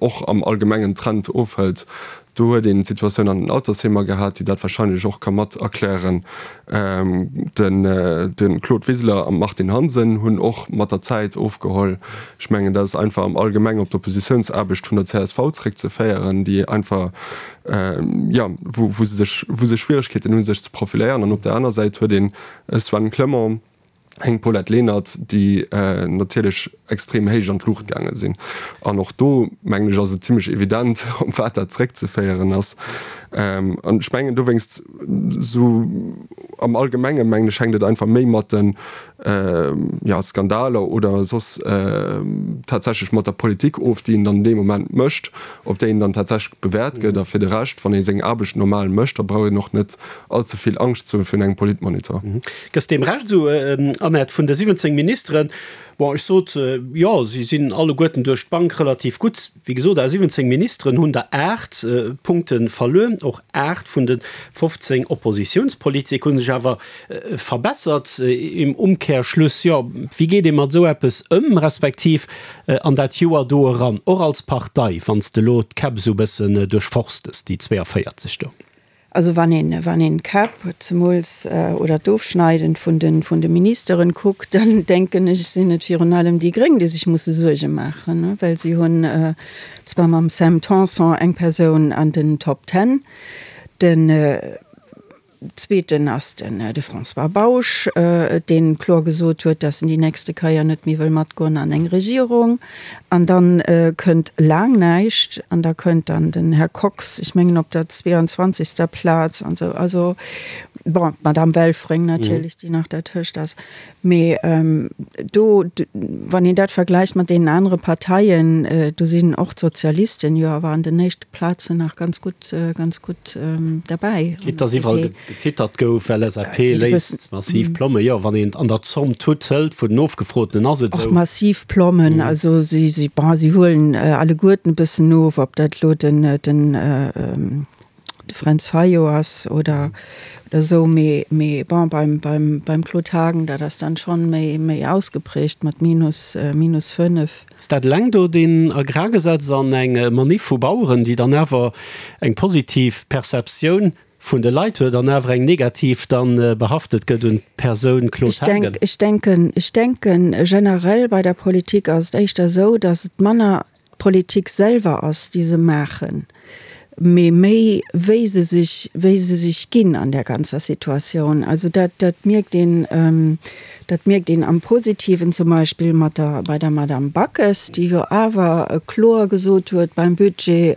och am allgemengen Trend ofhëlt. Do huet een d'Situatioun an den Altersheemer gehat, déi dat wahrscheinlech och ka mat erklären. De Claude Wiseler an d'Martine Hansen hunn och mat der Zäit ofgeholl. Ech mengen, dat ass einfach am Allgemeng op d'Oppositiounsaarbecht vun der csv zréckzeféieren, déi einfach, jo, wou se sech, wou se Schwieregkeeten hunn, sech ze profiléieren. An op der aner Säit huet een e Sven Clement, eng Paulette Lenert, déi natierlech extrem héich an d'Luucht gaange sinn. An och do, mengen ech, ass et zimlech evident, op wat dat zréckzeféieren ass. An ech mengen dowéinst, esou am Allgemenge mengen ech, hänkt et einfach méi mat de, jo, Skandaler oder soss tatsächlech mat der Politik of, déi een dann dee Moment mécht, op déi een dann tatsächlech bewäert gëtt. A fir de Rescht, wann ee seng Aarbecht normal mécht, da brauch een och net all ze vill Angscht ze hu virun engem Politmonitor. Gëss deem Recht esou, Annette, vun de 17 Ministeren, bon, ech sot, jo, si sinn alleguerten duerch d'Bank relativ gutt. Wéi gesot, aus 17 Ministeren hunn der 8 Punkte verluer. Och 8 vun de 15 Oppositiounspolitik hu sech awer verbessert. Im Umkehrschluss, jo, wéi geet ee mat esou eppes ëm, respektiv an dat Joer do eran, och als Partei, wann s de elo d'Käpp esou e bëssen duerchforstes, déi 42 do? Also wann een, wann een d'Käpp zemools oder d'Ofschneiden vun de, vun de Ministeren kuckt, dann denken ech, sinn et virun allem déi Gréng, déi sech musse Suerge maachen, well si hunn zwar mam Sam Tanson eng Persoun an den Top Ten, den zweeten ass den de François Bausch, dee kloer gesot huet, datt en déi nächste Keier net méi wëll matgoen an eng Regierung. An dann kënnt laang näischt an da kënnt dann den Här Kox, ech mengen op der 22. Plaz an esou. Also, bon, d'Madame Welfring natierlech, déi nach dertëscht ass. Mee do, wann een dat vergläicht mat deenen anere Parteien, do sinn och d'Sozialisten jo awer an den éischte Plazen nach ganz gutt, ganz gutt derbäi. Quitte dass iwwerall Getittert gouf, LSAP léisst massiv Plommen. Jo, wann een an der Zomm d'Tut hëlt vun den Ofgefrotenen, ass et esou. Och massiv Plommen, also si, si, bon, si huelen alleguerten e bëssen of, ob dat elo den, den, de Fränz Fayot ass oder, oder esou, mee, mee bon, beim, beim, beim Claude Haagen, dat ass dann schonn méi, méi ausgeprägt mat minus, minus 5. Ass dat eleng do deen Agrargesetz an eng Maniff vu Baueren, déi dann awer eng positiv Perceptioun. vun de Leit huet an awer eng negativ dann behaftet gëtt un d'Persoun Claude Haagen. Ech denken, ech denken generell bei der Politik ass et éischter esou, datt et manner d'Politik selwer ass, déi se maachen, mee méi wéi se sech, wéi se sech ginn an där ganzer Situatioun. Also dat, dat mierkt een, dat mierkt een am Positiven zum Beispill mat der, bei der Madame Backes, déi jo awer kloer gesot huet beim Budget,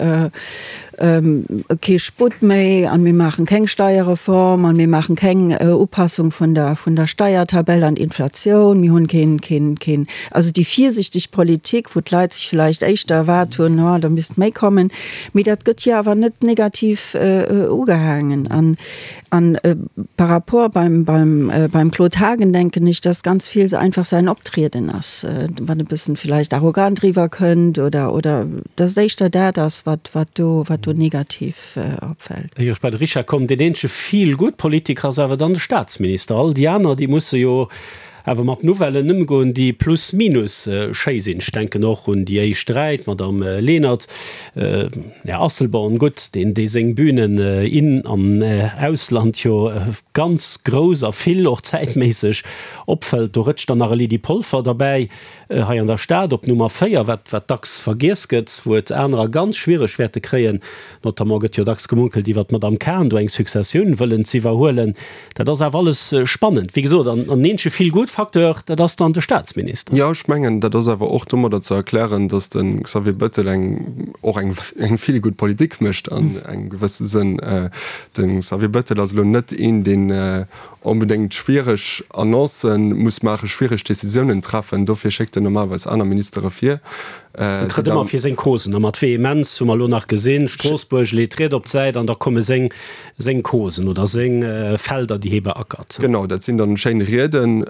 Kee Sputt méi an mir maachen keng Steierreform an mir maachen keng Upassung vun der vun der Steiertabell an d'Inflatioun. Mir hunn keen keen keen also déi virsichteg Politik, wou d'Leit sech villäicht éischter erwaart hunn, oh da misst méi kommen. Mee dat gëtt jo awer net negativ ugehaangen. An An par rapport beim, beim, beim Claude Haagen denken ech, dass ganz vill se einfach säin Optrieden ass, wat e bëssen vielleicht arrogant riwwer kënnt oder, oder dass et éischter dat ass, wat, wat do, wat do negativ opfält. Éier ech bei de Richard kommen, deen eenzege Feel-Good-Politiker ass awer dann de Staatsminister. All déi aner, déi musse jo awer mat Nouvellen ëmgoen, déi plus minus schéi sinn. Ech denken och un déi éischt 3, d'Madame Lenert, Här Asselborn, gutt, deen dee seng Bünen in an Ausland jo ganz grouss a vill och zäitméisseg opfëllt. Do rëtscht dann nach e Lydie Polfer derbäi hei an der Stad op Nummer 4, wat wat dacks vergiess gëtt, wou et anerer ganz schwiereg wäerte kréien. Notamment gëtt jo dacks gemunkelt iwwert d'Madame Cahen, do eng Successioun wëllen z'iwwerhuelen. Dat ass awer alles spannend, wéi gesot. An en eenzege Feel-Good-Facteur, dat ass dann de Staatsminister. Jo, ech mengen, dat ass awer och domadder ze erklären, datt de Xavier Bettel eng, och eng, eng Feel-Good-Politik mécht an engem gewësse Sënn. De Xavier Bettel ass elo net een, deen onbedéngt schwiereg Annoncë muss maachen, schwiereg Decisiounen treffen. Dofir schéckt en normalerweis aner Ministere vir. En trëtt ëmmer fir seng Causen a mat Vehemenz, hu mer elo nach gesinn. Stroossbuerg leet d'Ried op d'Säit an da komme seng seng Causen oder seng Felder, déi hie beackert. Genau, dat sinn dann schéin Rieden,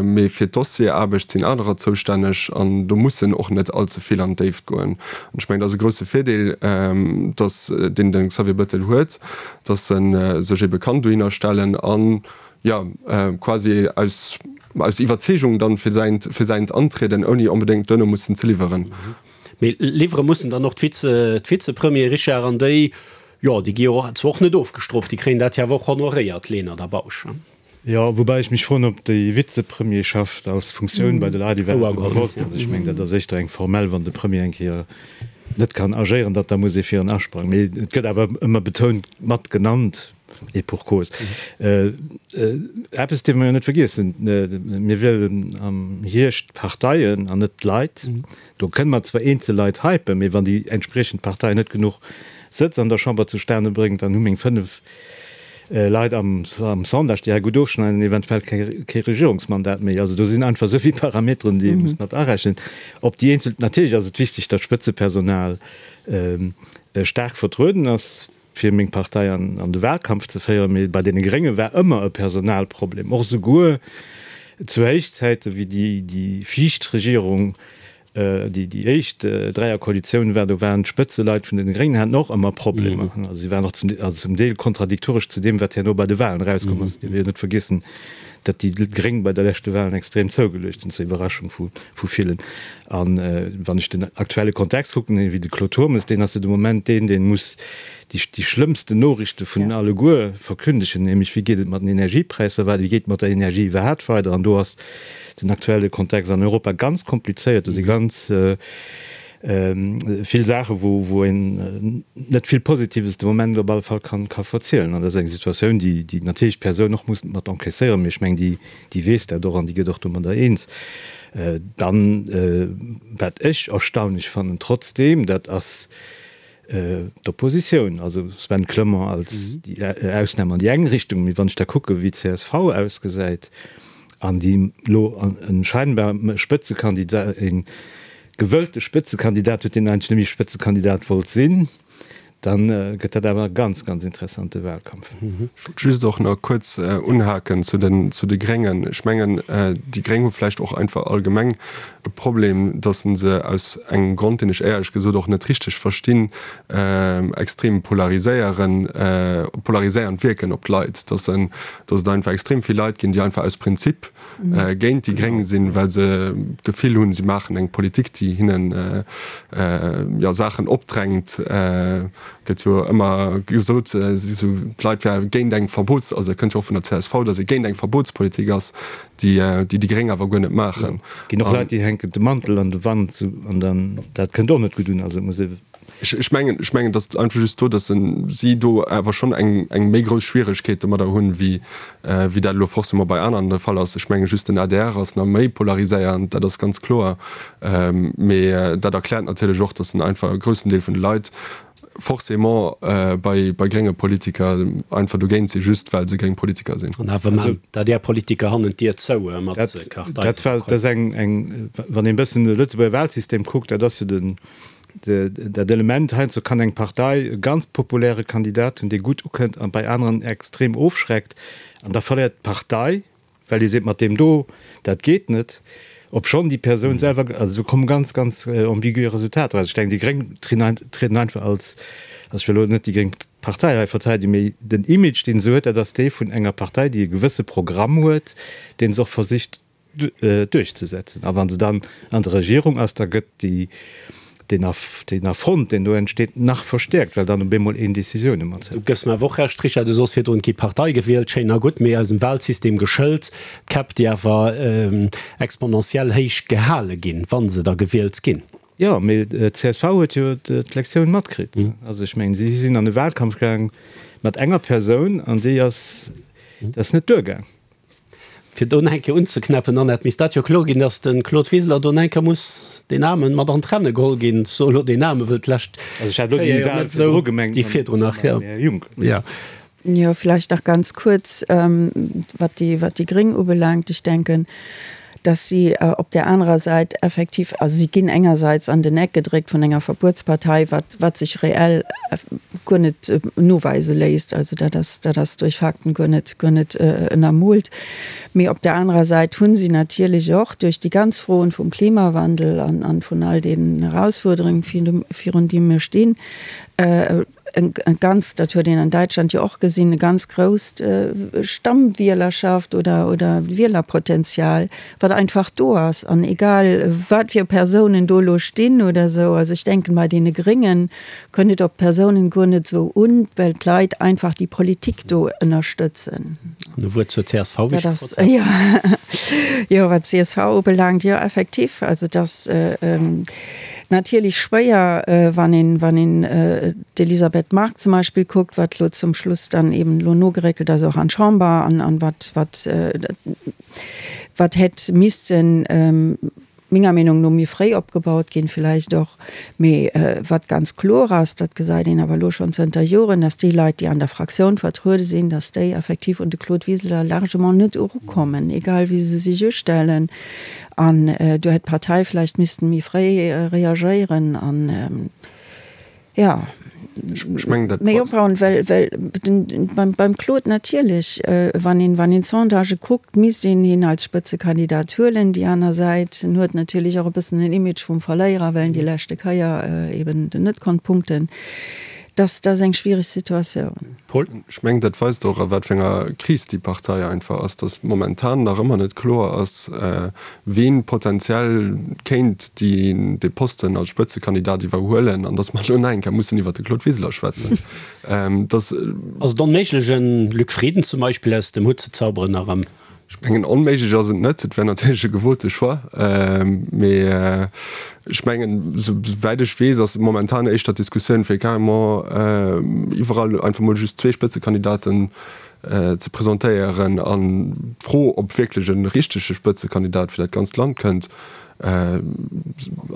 mee fir d'Dossierarbecht sinn anerer zoustänneg an do muss en och net allze vill an d'Déift goen. An ech mengen, dat ass e grousse Virdeel, dass, deen de Xavier Bettel huet, dass e sech ebe kann dohinner stellen an, jo, quasi aus, aus Iwwerzeegung dann fir säint, fir säint antrieden, ouni onbedéngt duerno mussen ze liwweren. Mee liwwere mussen dann och d'Vize, d'Vizepremiere, Richard, an déi, Jo, déi gi jo zwar och net ofgestrooft, déi kréien dat jo awer och honoréiert, Lenert a Bausch. Jo, woubäi ech mech froen, ob déi Vizepremierschaft als Funktioun bei de Leit iwwerhaapt esou bewosst ass. Ech mengen, dat ass éischter eng formell, wann de Premier eng Kéier net kann agéieren, datt da muss ee fir en asprangen. Mee et gëtt awer ëmmer betount mat genannt, et pour cause. Eppes dierfe mer jo net vergiessen, Mir wielen am Hierscht d'Parteien an net d'Leit. Do kënne mer zwar eenzel Leit hypen, mee wann déi entspriechend Partei net genuch Sëtz an der Chamber zustane bréngt, dann hu meng 5 Leit am Sondage, déi hei gutt ofschneiden, eventuell kee Regierungsmandat méi. Also do sinn einfach esou vill Parameteren, déi ee muss mat arechnen. Op déi eenzel, natierlech ass et wichteg, datt d'Spëtzepersonal staark vertrueden ass, fir meng Partei an de Wahlkampf ze féieren, mee bei deene Grénge war ëmmer e Personalproblem, och esouguer zu Héichzäite wéi déi viischt Regierung, déi déi éischt Dräierkoalitioun war, do waren d'Spëtzeleit vun deene Gréngen haten och ëmmer Problemer. Also si waren och zum, also zum Deel kontradiktoresch zu deem, wat herno bei de Wahlen erauskomm ass. Dir wéilt net vergiessen, datt déi Gréng bei der leschte Wahlen extrem zougeluecht hunn, zur Iwwerraschung vu villen. A wann ech den aktuelle Kontext kucken, wéi de Claude Turmes, deen ass jo de Moment deen, dee muss déi, déi schlëmmsten Noriichte vun alleguer verkündegen, nämlech wéi geet et mat den Energiepräisser weider, wéi geet et mat der Energie iwwerhaapt weider. An do ass den aktuelle Kontext an Europa ganz komplizéiert. Do si ganz vill Saachen, wou, wou een net vill Positives de Moment op alle Fall kann, ka verzielen. An dat ass eng Situatioun, déi, déi natierlech d'Persoun och muss mat encaisséieren, mee ech mengen, déi, déi weess dat och an déi gëtt och domadder eens. Dann, wat ech erstaunlech fannen trotzdeem, dat ass d'Oppositioun, also Sven Clement als déi Ausnam an déi eng Richtung, mee wann ech da kucke wéi d'CSV ausgesäit an déi elo e scheinbar Spëtzekandidat, e gewëllte Spëtzekandidat huet, deen eigentlech net méi Spëtzekandidat wollt sinn, Dann gëtt dat awer e ganz, ganz interessante Wahlkampf. Ech wollt just och nach kuerz unhaken zu den, zu de Gréngen. Ech mengen, déi Gréng hu vläicht och einfach allgemeng e Problem, datt se aus engem Grond, deen ech éierlech gesot och net richteg verstinn, extrem polariséieren, polariséiernd wierken op d'Leit, datt se, datt et einfach extrem vill Leit ginn, déi einfach aus Prinzip géint déi Gréng sinn, well se d'Gefill hunn, si maachen eng Politik, déi hinnen jo Saachen opdrängt. Gëtt jo ëmmer gesot, esou d'Leit wäre géint eng Verbots-, also et kënnt jo och vun der csv, datt ee géint eng Verbotspolitik ass, déi déi Gréng awer guer net maachen. Ginn och Leit, déi hänken de Mantel an de Wand an dann, dat kënnt och net gutt un. Also et muss ee. Ech mengen, ech mengen, datt einfach just do, datt si do awer schonn eng, eng méi grouss Schwieregkeet domadder hunn, wéi, wéi dat elo forcément bei aneren de Fall ass. Ech menge just den adr ass nach méi polariséiernd, dat ass ganz kloer. Mee dat erkläert natierlech och, datt en einfach e groussen Deel vun de Leit forcément bei, bei grénge Politiker einfach dogéint sinn, just well se gréng Politiker sinn. An awer maan d'ADR-Politiker hannen d'Dier zou mat Karteiseverkäufen. Dat war, dat ass eng, eng, wann een e bëssen de Lëtzebuerger Wahlsystem kuckt, dat ass jo den, dat Element, heiansdo kann eng Partei e ganz populäre Kandidat hunn, dee gutt ukënnt a bei aneren extrem ofschreckt, an da verléiert d'Partei, well ee seet, mat deem do, dat geet net, obschonn déi Persoun selwer, also do komme ganz, ganz ambigue Resultater eraus. Ech denken, déi Gréng trieden einfach als, also ech wëll elo net déi gréng Partei hei verteidegen, mee den Image, deen se huet, dat ass dee vun enger Partei, déi e gewësse Programm huet, dee se och versicht duerchzesetzen. A wa se dann an der Regierung ass, da gëtt déi, deen Affront, deen do entsteet, nach verstäerkt, well dann op eemol een Décisioune mat hëlt. Du gëss mer awer och Recht, Richard, du sos virdrun, et gi Partei gewielt, schéin a gutt, mee eisem Wahlsystem geschëlt, d'Käpp, déi awer exponentiell héich gehale ginn, wa se da gewielt ginn. Jo, mee d'CSV huet jo d'Lektioun matkritt. Also ech mengen, si sinn an de Wahlkampf gaang mat enger Persoun an déi ass, dat ass net duergaang. Fir do nach eng Kéier unzeknäppen, Annette, misst dat jo kloer ginn, datt de Claude Wiseler do nach eng Kéier muss deen Aarmen mat an d'Renne geholl ginn. Ech soe lo deen Aarmen, wëll d'lescht Kéier jo net esou déi virdrun nach, jo. Jo. Jo, vläicht nach ganz kuerz, wat déi, wat déi Gréng ubelaangt. Ech denken, dass si op där anerer Säit effektiv, also si ginn engersäits an den Eck gedréckt vun enger Verbuetspartei, wat, wat sech reell guer net noweise léisst, also dat ass, dat ass duerch Fakten guer net, guer net ënnermoolt. Mee op där anerer Säit hu si natierlech och duerch déi ganz Froen vum Klimawandel an, an vun all deenen Erausfuerderungen, virun deem mir stinn, e ganz, dat huet een an Däitschland jo och gesinn, e ganz grousst Stammwielerschaft oder, oder Wielerpotenzial, wat einfach do ass. An egal wat fir Persounen do elo stinn oder esou, also ech denken, bei deene Gréngen kënnt et op d'Persounen guer net esou un, well d'Leit einfach déi Politik do ënnerstëtzen. An e Wuert zur csv, wéi ech gefrot hat. Jo, jo, wat d'CSV ubelaangt, jo effektiv, also dass Natierlech schwéier, wann een, wann een d'Elisabeth Margue zum Beispill kuckt, wat elo zum Schluss dann eben elo nogeréckelt ass och an d'Chamber an, an wat, wat, wat hätt missten menger Meenung no méi fréi opgebaut ginn villäicht och. Mee wat ganz kloer ass, dat gesäit een awer elo schonn zënter Joren, dass déi Leit, déi an der Fraktioun vertruede sinn, dass déi effektiv un de Claude Wiseler largement net erukommen, egal wéi se sech ustellen. An do hätt d'Partei vläicht missten méi fréi reagéieren an, jo, méi opbauen, well, well beim, beim Claude natierlech, wann een, wann een d'Sondagë kuckt, misst een hien als Spëtzekandidat huelen. Déi aner Säit, en huet natierlech och e bëssen den Image vum Verléierer, well en déi leschte Kéier eben net konnt punkten. Dat, dat ass eng schwiereg Situatioun. Paul? Ech mengen, dat weist och, a wat fir enger Kris déi Partei einfach ass, datt momentan nach ëmmer net kloer ass, ween potenziell kéint dee Posten als Spëtzekandidat iwwerhuelen an datt mer elo nach eng Kéier mussen iwwert de Claude Wiseler schwätzen. Ass et onméiglech, e Luc Frieden zum Beispill aus dem Hutt ze zauberen nach am. Ech mengen, onméiglech ass et net. Et wär natierlech e gewote Choix. Mee ech mengen, souwäit ech weess, ass momentan éischter d'Diskussioun, fir carrément iwwerall einfach mol just zwee Spëtzekandidaten ze presentéieren. An d'Fro, ob wierklech e richtege Spëtzekandidat fir dat ganzt Land kënnt,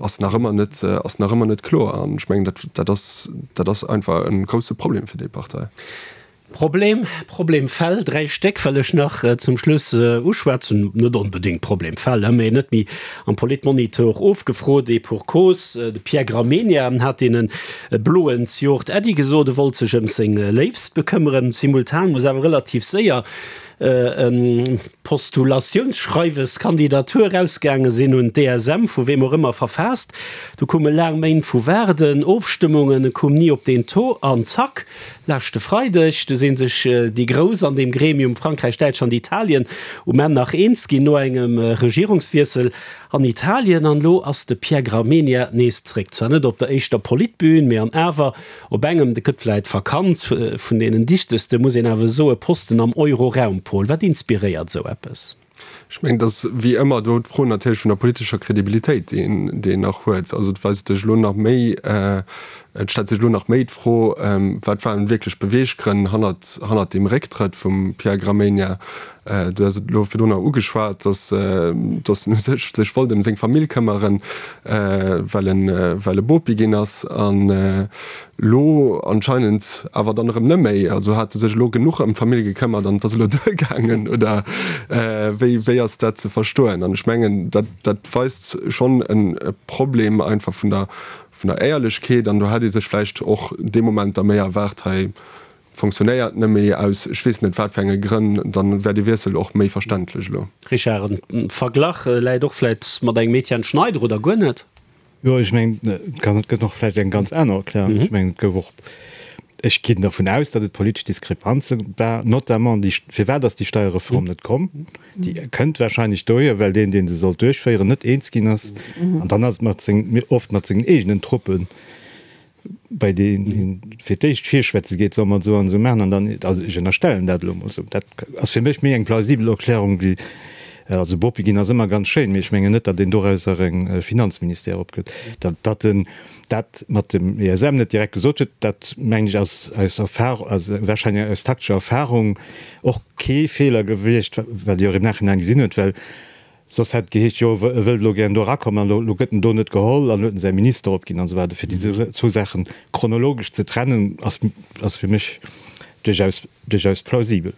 ass nach ëmmer net, ass nach ëmmer net kloer. An ech mengen, dat, dat ass, dat ass einfach e grousse Problem fir déi Partei. Problem, Problemfäll, 3 Stéck wëll ech nach zum Schluss uschwätzen, net onbedéngt Problemfäll, mee net méi am Politmonitor ofgefrot, et pour cause, de Pierre Gramegna hat deene Bloen z'Jort Äddi gesot, e wollt sech ëm seng Léifst bekëmmeren. Simultan muss awer relativ séier e Postulatiounsschreiwes, Kandidatur, erausgaange sinn, un d'DSM, vu weem och ëmmer verfaasst. Du koume laang Méint vu Waarden, Ofstëmmungen, e koum ni op deen Taux an zack, leschte Freideg, du si sech déi Grouss an deem Gremium, Frankräich, Däitschland, Italien, um Enn nach eens ginn no engem Regierungswiessel. An Italien. An elo ass de Pierre Gramegna nees zréck. Zwar net op der éischter Politbün, mee an awer op engem, dat gëtt vläit verkannt, vun deenen dichteste, muss een awer soe, Posten am Euroraum. Paul, wat inspiréiert esou eppes? Ech mengen, et ass wéi ëmmer do d'Fro natierlech vun der politescher Kredibilitéit, déi een, déi een nach huet. Also et weist sech elo nach méi, et stellt sech elo nach méi d'Fro, wat waren wierklech d'Beweeggrënn hannert, hannert deem Récktrëtt vum Pierre Gramegna? Du has et elo virdrun nach ugeschwat, datt, datt en u sech sech wollt ëm seng Famill këmmeren, well en, well e Bopi ginn ass. An Lo anscheinend awer dann erëm neméi. Also hat e sech elo genuch ëm d'Famill gekëmmert an et ass elo duergaangen, oder wéi, wéi ass dat ze verstoen? An ech mengen, dat, dat weist schonn e Problem einfach vun der, vun der Éierlechkeet. An do hätt ee sech vläicht och dee Moment da méi erwaart, hei fonctionnéiert neméi aus ech weess net wat fir enge Grënn, dann wär dee Wiessel och méi verständlech elo. Richard, en Verglach läit och vläit mat engem Etienne Schneider, oder guer net? Jo, ech mengen, et kann, et gëtt och vläicht eng ganz aner Erklärung. Ech mengen, et gouf och, ech ginn dervun aus, datt et politesch Diskrepanze war, notamment déi, firwat ass déi Steierreform net komm? Déi kënnt wahrscheinlech dohier, well deen, dee se sollt duerchféieren, net eens ginn ass. An dann ass et mat seng, oft mat sengen eegenen Truppen, bei deenen een fir d'éischt virschwätze geet, soll mer et esou an esou maachen, an dann, also ech ënnerstellen dat elo emol esou, dat ass fir mech méi eng plausibel Erklärung wéi, also Bopi ginn ass ëmmer ganz schéin, mee ech mengen net, datt een dorausser e Finanzministère opgëtt. Datt, datt en dat mat dem ESM net direkt gesot huet, dat mengen ech ass aus Erfahrung, also wahrscheinlech aus taktescher Erfahrung och kee Feeler gewiescht, wat Dir och im Nachhinein gesinn hutt, well Soss hätt et geheescht, jo, e wëllt elo gären do erakommen an elo gëtt en do net geholl an huet en säi Minister opginn an esou weider. Fir déi zwou Saache chronologesch ze trennen, ass, ass fir mech duerchaus, duerchaus plausibel.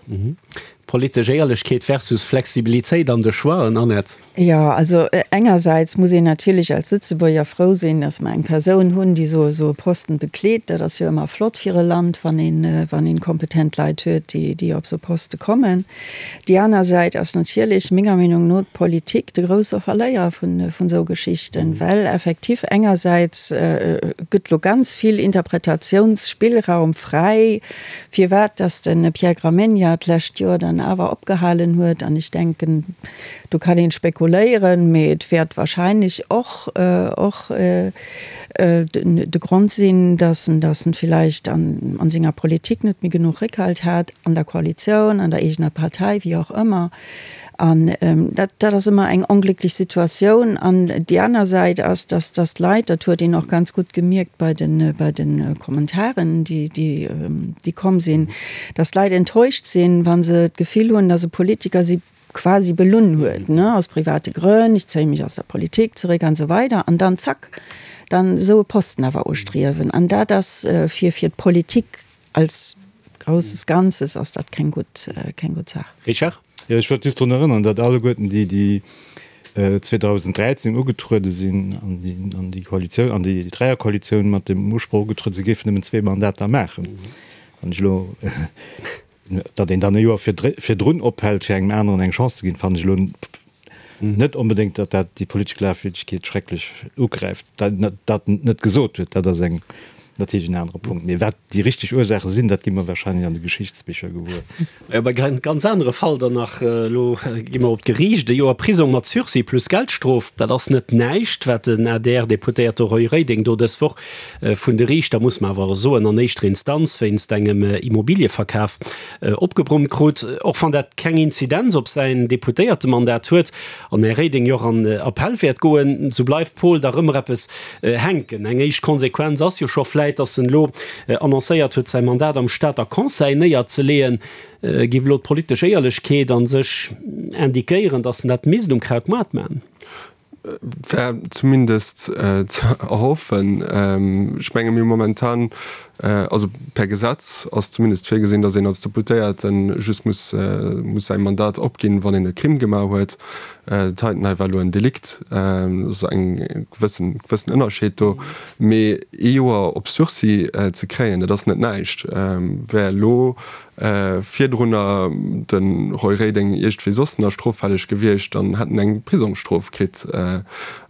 Politesch Éierlechkeet versus Flexibilitéit an de Choixen, Annette? Jo, also engersäits muss een natierlech als Lëtzebuerger frou sinn, datt mer eng Persoun hunn, déi esou esou e Posten bekleet. Dat ass jo ëmmer flott fir e Land, wann een, wann een kompetent Leit huet, déi, déi op esou Poste kommen. Déi aner Säit ass natierlech, menger Meenung no, d'Politik de grousse Verléierer vun esou Geschichten, well effektiv engersäits gëtt lo ganz vill Interpretatiounsspillraum fräi, firwat dass de Pierre Gramegna d'lescht Joer dann awer opgehalen huet. An ech denken, do kann een spekuléieren, mee et wäert wahrscheinlech och och de Grond sinn, dass en dass en villäicht an senger Politik net méi genuch Réckhalt hat, an der Koalitioun, an der eegener Partei, wéi och ëmmer. An dat dat ass ëmmer eng onglécklech Situatioun. An déi aner Säit ass, dass dass d'Leit, dat huet een och ganz gutt gemierkt bei de bei de Kommentaren, déi déi déi komm sinn, dass d'Leit enttäuscht sinn, wa se d'Gefill hunn, dass e Politiker si quasi belunn huet, ne, aus private Grënn, ech zéie mech aus der Politik zeréck an esou weider, an dann zack, dann esou e Posten awer ustriewen. An dat ass fir, fir d'Politik als grousses Ganzes ass dat keng gutt, keng gutt Saach. Richard? Jo, ech wollt just drun erënneren, datt alleguerten déi, déi 2013 ugetruede sinn an déi, an déi Koalitioun, an déi Dräierkoalitioun mat dem Usproch ugetruede sinn, géifen nëmmen zwee Mandater maachen. Wann ech elo. Datt een dann e Joer virdrun ophält, fir engem aneren eng Chance ze ginn, fannen ech elo net onbedéngt, datt dat déi politesch Glafwierdegkeet schrecklech ugräift. Datt en et net gesot huet, dat ass eng natierlech en anere Punkt. Mee wat déi richteg Ursaache sinn, dat gi mer warscheinlech an de Geschichtsbicher gewuer. Jo, bei e ganz anere Fall dann nach. Elo gi mer op d'Geriicht. E Joer Prisong mat Sursis plus Geldstrof, dat ass net näischt, wat den ADR-Deputéierte Roy Reding do dës Woch Vun de Riichter, muss mer awer soen, an éischter Instanz wéinst engem Immobilieverkaf opgebrummt krut. Och wann dat keng Inzidenz op säin Deputéiertemandat huet an Här Reding jo och an Appell wäert goen, sou bleift Paul dach ëmmer eppes hänken. Eng éischt Konsequenz ass jo scho vläit, datt en elo annoncéiert huet, säi Mandat am Stater Conseil néierzeleeën. Géif elo d'politesch Éierlechkeet a sech indiquéieren, datt en dat misst um Krautmaart maachen? Wär zumindest ze erhoffen. Ech menge mir momentan, also per Gesetz ass zumindest virgesinn, datt een als Deputéierte just muss muss säi Mandat opginn, wann een e Crime gemaach huet. Dat heiten hei war elo en Delikt, dat ass eng gewëssen gewëssen Ënnerscheed do. Mee ee Joer op Sursis ze kréien, dat ass net näischt. Wär elo Virdrunner de Roy Reding iergendwéi soss nach stroffälleg gewiescht, dann hätt en eng Prisongsstrof kritt.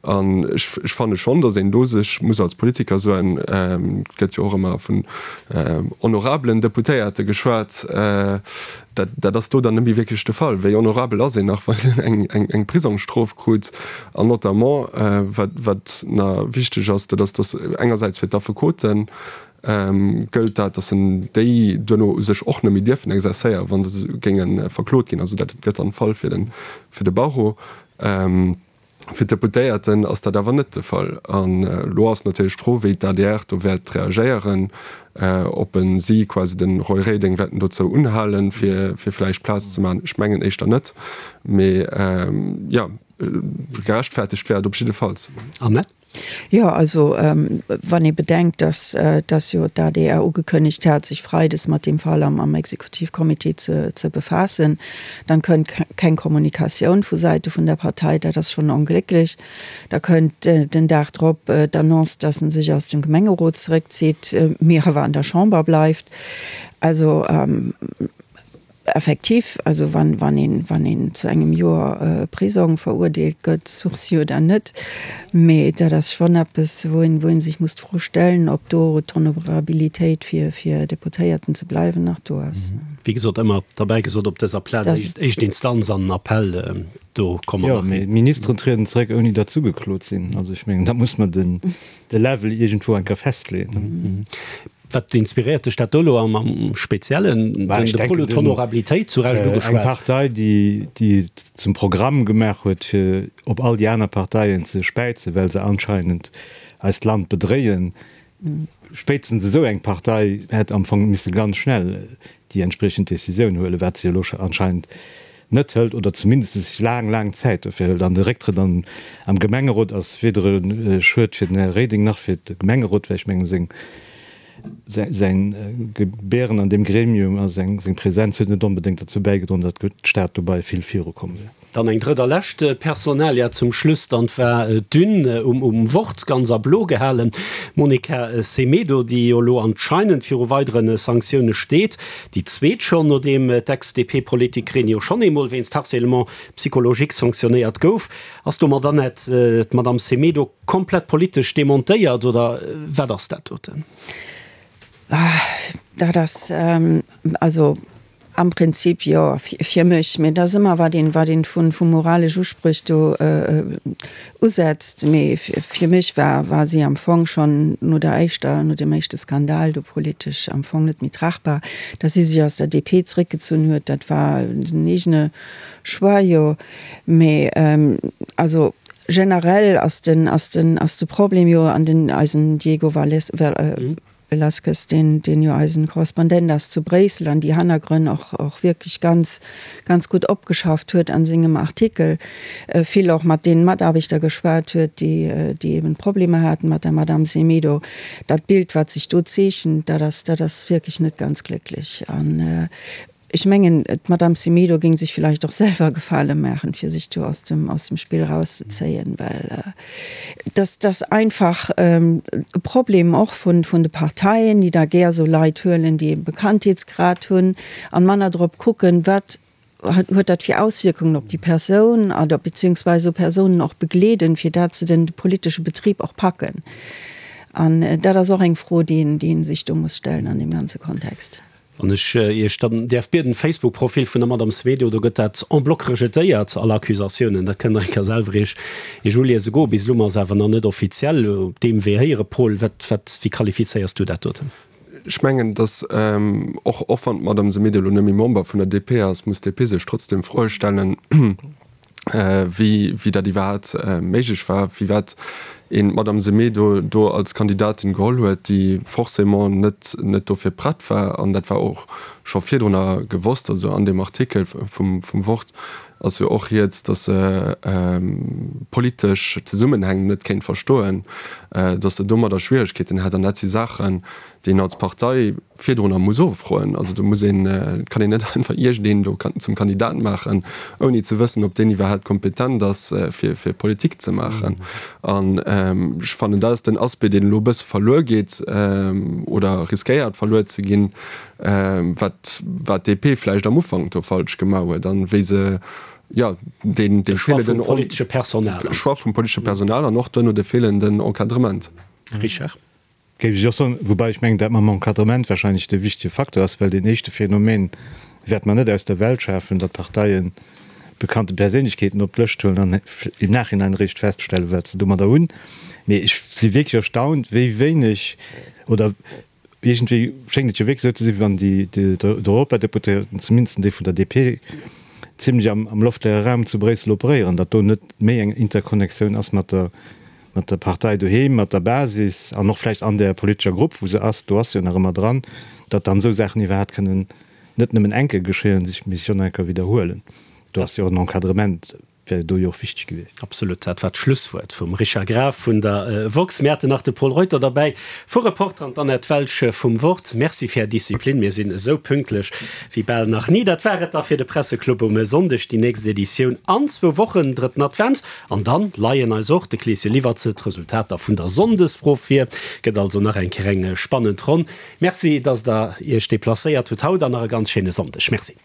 An ech fanne schonn, datt een do sech muss als Politiker soen, et gëtt jo och ëmmer vu vun honorabelen Deputéierte geschwat. Dat, dat ass do dann net méi wierklech de Fall. Wéi honorabel ass een nach, wann een eng, eng Prisongsstrof krut? An notamment, wat, wat nach wichteg ass, dat ass, datt engersäits fir d'Affekoten gëllt dat, datt en déi duerno u sech och net méi dierfen exercéieren, wa se géinge verklot ginn. Also dat gëtt dann de Fall fir den, fir de Barreau. Fir d'Deputéierten ass dat awer net de Fall. An elo ass natierlech d'Fro, wéi d'ADR do wäert reagéieren, ob en si quasi de Roy Reding wäerten dozou unhalen, fir vläicht Plaz ze maachen. Ech mengen éischter net, mee jo, gerechtfertegt wär et op jiddefalls. Annette? Jo, also wann ee bedenkt, datt datt jo d'ADR ugekënnegt hat, sech freides mat deem Fall am am Exekutivcomité ze ze befaassen, dann kënnt keng Kommunikatioun vu Säite vun der Partei, dat ass schonn onglécklech. Da kënnt den Dag drop d'Annonce, datt en sech aus dem Gemengerot zeréckzitt, mee awer an der Chamber bleift. Also Effektiv, also wann, wann een, wann een zu engem Joer Prisong verurdeelt gëtt, Sursis oder net, mee dat ass schonn eppes, wou een, wou ee sech muss d'Fro stellen, ob do d'Honorabilitéit fir, fir Deputéierten ze bleiwen nach do ass. Wéi gesot, ëmmer derbäi gesot op dëser Plaz, éischt, éischt Instanz an Appell, do komme mer nach hin. Jo, mee Ministeren trieden zeréck, ouni datt se ugeklot sinn. Also ech mengen, da muss mer den, de Level iergendwou eng Kéier festleeën. Wat inspiréiert dech dat do elo am Speziellen? De Paul huet d'Honorabilitéit zu Recht ugeschwat. Eng Partei, déi et zum Programm gemaach huet, fir op all déi aner Parteien ze späizen, well se anscheinend eist Land bedréien, spéitstens esou eng Partei hätt am Fong misse ganz schnell déi entspriechend Décisioun huelen, wat se elo anscheinend net hëlt oder zumindest sech laang, laang Zäit dofir hëlt. An de Récktrëtt am Gemengerot ass weder e Schued fir den Här Reding nach fir de Gemengerot, well ech mengen, seng, säin Gebären an deem Gremium a seng, seng Präsenz huet net onbedéngt derzou bäigedroen, datt d'Stad dobei vill virukomm wier. Dann eng drëtt a lescht Personalia zum Schluss, dann war d'Une um Wort ganz a blo gehalen. D'Monica Semedo, déi jo elo anscheinend viru weidere Sanktioune steet, Déi zweet schonn, nodeem d'Ex-DP-Politikerin jo schonn eemol wéinst Harcèlement psychologique sanktionéiert gouf. Ass domat Annette, d'Madame Semedo komplett politesch demontéiert oder wat ass dat doten? Dat ass also am Prinzip jo fir mech, mee et ass ëmmer wat een, wat een vu moralesch Uspréch do usetzt, mee fir mech war war si am Fong schonn no der éischter, no deem éischte Skandal do politesch am Fong net méi tragbar. Datt si sech aus der DP zeréckgezunn huet, dat war den eegene Choix, jo, mee also generell ass den ass den ass de Problem jo an den eisen Diego Valles Velasquez, deen, deen jo eisen Korrespondent ass zu Bréissel an déi Hannergrënn och, och wierklech ganz, ganz gutt opgeschafft huet an sengem Artikel, vill och mat deenen Mataarbechter geschwat huet, déi, déi eben Problemer haten mat der Madame Semedo. Dat Bild, wat sech do zeechent, dat ass, dat ass wierklech net ganz glécklech. An Ech mengen, d'Madame Semedo géing sech villäicht och selwer e Gefale maachen, fir sech do aus dem, aus dem Spill erauszezéien, well dass, dass einfach e Problem och vun, vun de Parteien, déi da gär esou Leit huelen, déi e Bekanntheetsgrad hunn an manner drop kucken, wat huet dat fir Auswierkungen op déi Persoun oder beziehungsweise esou Persounen och begleeden, fir dat se den politesche Betrib och packen. An dat ass och eng Fro, déi een, déi ee sech do muss stellen an deem ganze Kontext. Wann ech Iech dann däerf bieden, Facebook-Profil vun der Madame Semedo, do gëtt dat en bloc rejetéiert, all Accusatiounen. Dat kënnt Der eng Kéier selwer Iech Iech uliese goen. Bis elo ass awer nach net offiziell op deem Wee héieren. Paul, wat, wat, wéi qualifizéiers du dat doten? Ech mengen, datt och, och wann d'Madame Semedo elo net méi Member vun der DP ass, muss d'DP sech trotzdem Froe stellen, wéi wéi dat iwwerhaapt méiglech war, firwat een d'Madame Semedo do als Kandidatin geholl huet, déi forcément net net dofir prett war. An dat war och scho virdrunner gewosst. Also an deem Artikel vum vum Wort ass jo och rieds, datt se politesch Zesummenhäng net kéint verstoen, datt se domadder Schwieregkeeten hätt. An dat si Saachen, déi een als Partei virdrunner muss offroen. Also do muss een, et kann een net einfach iergendeen do zum Kandidat maachen, ouni ze wëssen, ob deen iwwerhaapt kompetent ass, fir fir Politik ze maachen. An ech fannen, dat ass den Aspect, deen elo e bësse verluer geet oder riskéiert verluer ze ginn, wat wat d'DP vläicht am Ufank do falsch gemaach huet an wéi se, jo, deen dee feelenden Choix vum politesche Personal an och duerno de feelenden Encadrement. Richard. Géif ech och soen, woubäi ech mengen, dat mam Encadrement wahrscheinlech de wichtege Facteur ass, well deen éischte Phänomen wäerte mer net aus der Welt schafen, datt Parteien bekannte Perséinlechkeeten op d'Lëscht huelen an im Nachhinein eréischt feststellen, wat se domadder hunn. Mee ech si wierklech erstaunt, wéi wéineg, oder iergendwéi schéngt et jo wierklech esou ze sinn, wéi wann déi d'Europadeputéierten, zumindest déi vun der DP, zimlech am loftleere Raum zu Bréissel operéieren, datt do net méi eng Interconnectioun ass mat der mat der Partei doheem, mat der Basis an och vläicht an där politescher Grupp, wou se ass, do ass se jo nach ëmmer dran, datt dann esou Saachen iwwerhaapt kënnen net nëmmen eng Kéier geschéien, mee sech och nach eng Kéier widderhuelen. Do ass jo och en Encadrement, wär do jo och wichteg gewiescht. Absolut, dat war d'Schlusswuert vum Richard Graf vun der woxx. Mir haten nach de Pol Reuter derbäi vu Reporter an d'Annette Welsch vum Wort. Merci fir Är Disziplin, mir sinn esou pünktlech wéi bal nach ni. Dat war et da fir de Presseclub um Sonndeg. Déi nächst Editioun an zwou Wochen, drëtten Advent. An dann leien eis och, de Kleeschen liwwert se, d'Resultater vun der Sonndesfro vir. Gëtt also nach eng Kéier eng spannend Ronn. Merci, dass der Iech deplacéiert hutt haut an nach e ganz schéine Sonndeg. Merci.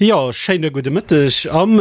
Jo, schéine gudde Mëtteg am.